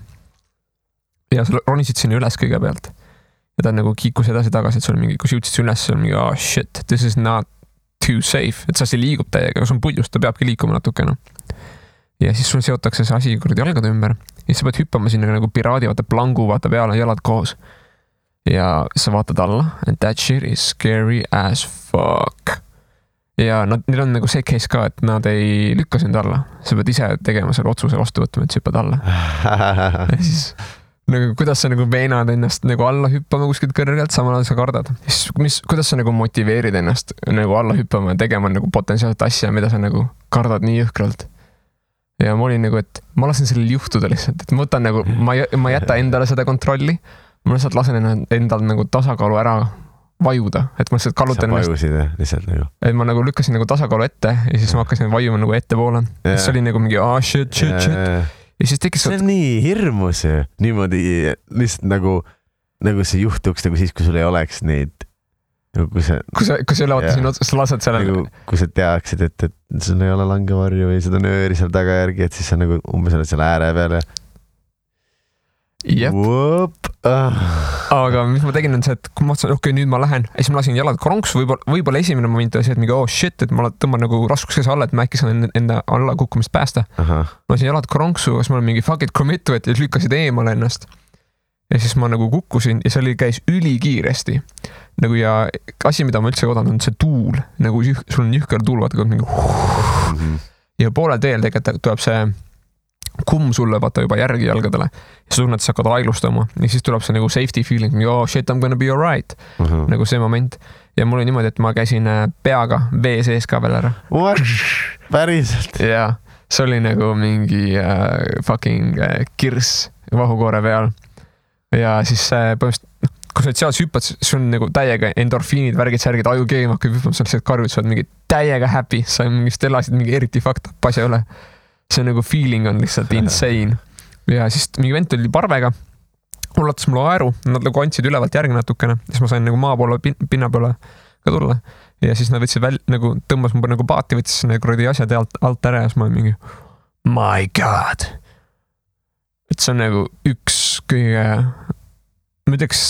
ja sa ronisid sinna üles kõigepealt ja ta nagu kiikus edasi tagasi, et sul mingi, kui sa jõudsid üles, sul mingi shit, this is not too safe, et see liigub täiega, kui sul on puljust, ta peabki liikuma natukene. Ja siis sul seotakse see asi kuradi jalgade ümber ja sa pead hüppama sinna nagu piraadi, vaata plangu, vaata peale, jalad koos. Ja sa vaatad alla and that shit is scary as fuck. Ja neil on nagu see case ka, et nad ei lükka sind alla. Sa pead ise tegema selle otsuse vastu võtma, et sa hüppad alla. Ja siis nagu, kuidas sa nagu veenad ennast nagu alla hüppama kuskilt kõrgelt, samal ajal sa kardad. Siis, kuidas sa nagu motiveerid ennast nagu alla hüppama ja tegema nagu potentsiaalset asja, mida sa nagu kardad nii jõhkralt. Ja ma olin nagu, et ma lasen sellel juhtuda lihtsalt, et ma võtan nagu, ma jäta endale seda kontrolli, ma lihtsalt lasen endal nagu tasakaalu ära vajuda, et ma lihtsalt kallutan ennast. Sa vajusid lihtsalt nagu. Et ma nagu lükkasin nagu tasakaalu ette ja siis ma hakkasin vajuma nagu ettepoole. See oli nagu mingi shit. Ja siis tekkis... See on nii hirmus ju. Niimoodi lihtsalt nagu see juhtuks nagu siis, kui sul ei oleks neid... Kui sa ei ole siin otsast, sa lased sellele. Nagu, kui sa teaksid, et sul ei ole langevarju või seda nööri seal tagajärgi, et siis sa nagu umbes oled seal ääre peal ja... Jep. Aga mis ma tegin on see, et kui ma mõtlesin, okei, nüüd ma lähen ja siis ma lasin jalad kronksu, võib-olla esimene moment oli see, et mingi shit, et ma tõmban nagu raskuskese alla, et ma äkki saan enda alla kukkumist päästa. Ma lasin jalad kronksu, kas ma olen mingi fuck it committu, et lükkasid eemale ennast. Ja siis ma nagu kukkusin ja see käis ülikiiresti. Nagu ja asi, mida ma üldse oodan, on see tuul. Nagu sul on jühker tuul, vaata kui mingi... Ja poole teel tegelikult tuleb see kumm sulle vaata juba järgi jalgadele. Ja sa tunned, et sa hakkad aeglustama. Ja siis tuleb see nagu safety feeling, shit, I'm gonna be alright. Nagu see moment. Ja mul oli niimoodi, et ma käisin peaga vee sees ka veel ära. What? Päriselt? Ja see oli nagu mingi fucking kirss vahukoore peal. Ja siis põhimõtteliselt, kui sa seal hüppad, siis on nagu täiega endorfiinid, värgid, särgid, aju keem hakkab hüppama, sa lihtsalt karjud, sa oled mingi täiega happy, sa mingist elasid mingi eriti fucked up asja üle. See nagu feeling on lihtsalt insane. Ja siis mingi vent oli parvega, ulatas mulle aeru, nad nagu andsid ülevalt järgi natukene, siis ma sain nagu maa poole, pinna peale ka tulla. Ja siis nad võtsid nagu tõmbas mu nagu paati, võttis nagu asjad alt ära ja siis ma olin mingi my god. Et see on nagu üks kõige, ma ütleks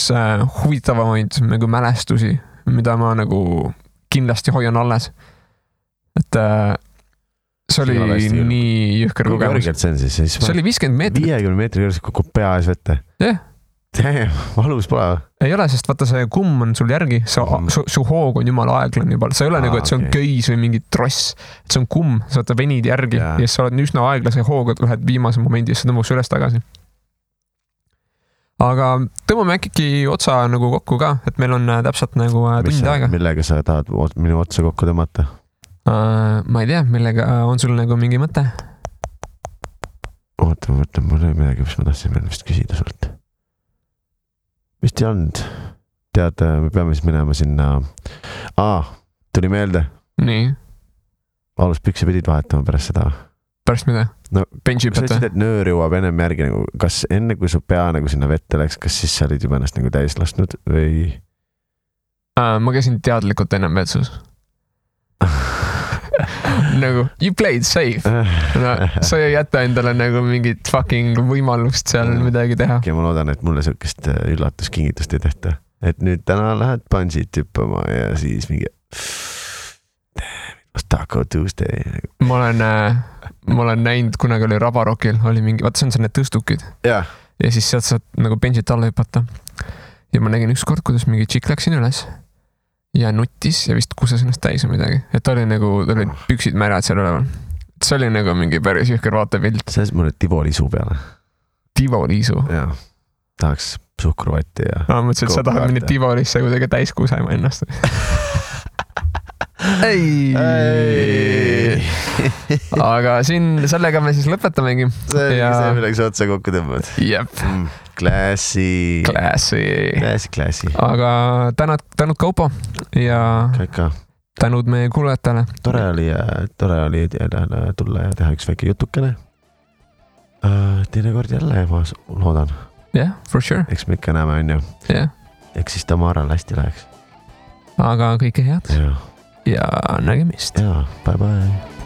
huvitavamaid nagu mälestusi, mida ma nagu kindlasti hoian alles. Et see oli nii jõhker kogemus. See oli 50 meetrit. 50 meetri kõrgelt kukub pea ees vette. Jah. Valus pole. Ei ole, sest vaata see kumm on sul järgi, su hoog on jumala aeglan juba. See ei ole nagu, et see on köis või mingi tross. Et see on kumm, sa vaata venid järgi ja sa oled üsna aeglase hooga, lähed viimase momendi ja sa tõmbaks üles tagasi. Aga tõmbame äkki otsa nagu kokku ka, et meil on täpselt nagu tund aega. Millega sa tahad minu otsa kokku tõmmata? Ma ei tea, millega on sul nagu mingi mõte? Oota, mul ei midagi, mis ma tahtsin veel vist küsida sult. Vist ei olnud. Tead, me peame siis minema sinna... tuli meelde. Nii. Aluspükse pidid vahetama pärast seda. Pärast mida? No, benchi sa ütlesid, et nöör jõuab ennem järgi. Nagu, kas enne, kui su pea nagu sinna vette läks, kas siis sa olid juba ennast nagu täis lastnud või... Ma käisin teadlikult ennem vetsus. Nagu, you played safe. No, sa ei jäta endale nagu mingit fucking võimalust seal midagi teha. Ja ma loodan, et mulle sellist üllatuskingitust ei tehta. Et nüüd täna lähed bungee tüppama ja siis mingi Taco Tuesday. Ma olen näinud, kunagi oli Rabarokil, oli mingi, vaata see on need tõstukid. Ja siis sealt saad nagu benchit alla hüpata. Ja ma nägin ükskord, kuidas mingi tšik läksin üles ja nuttis ja vist kuses ennast täis või midagi. Et oli nagu, olid püksid märjad seal üleval. See oli nagu mingi päris jõhker vaatepilt. See on mulle Tivoliisu peale. Tivoliisu? Jaa. Tahaks suhkruvatti ja... mõtlesin, et sa tahad minna Tivolisse kuidagi täis kusema ennast. Ei. Aga siin sellega me siis lõpetamegi. See milleks otsa kokku tõmbad. Jep. Klassi. Aga tänud Kaupo ja Kaika. Tänud meie kuulajatele. Tore oli tulla ja teha üks väike jutukene. Teine kord jälle, ma loodan. Yeah, for sure. Eks me ikka näeme, on ju. Yeah. Eks siis Tamaral hästi läheks. Aga kõike head. Ja nägemist. Ja, bye bye.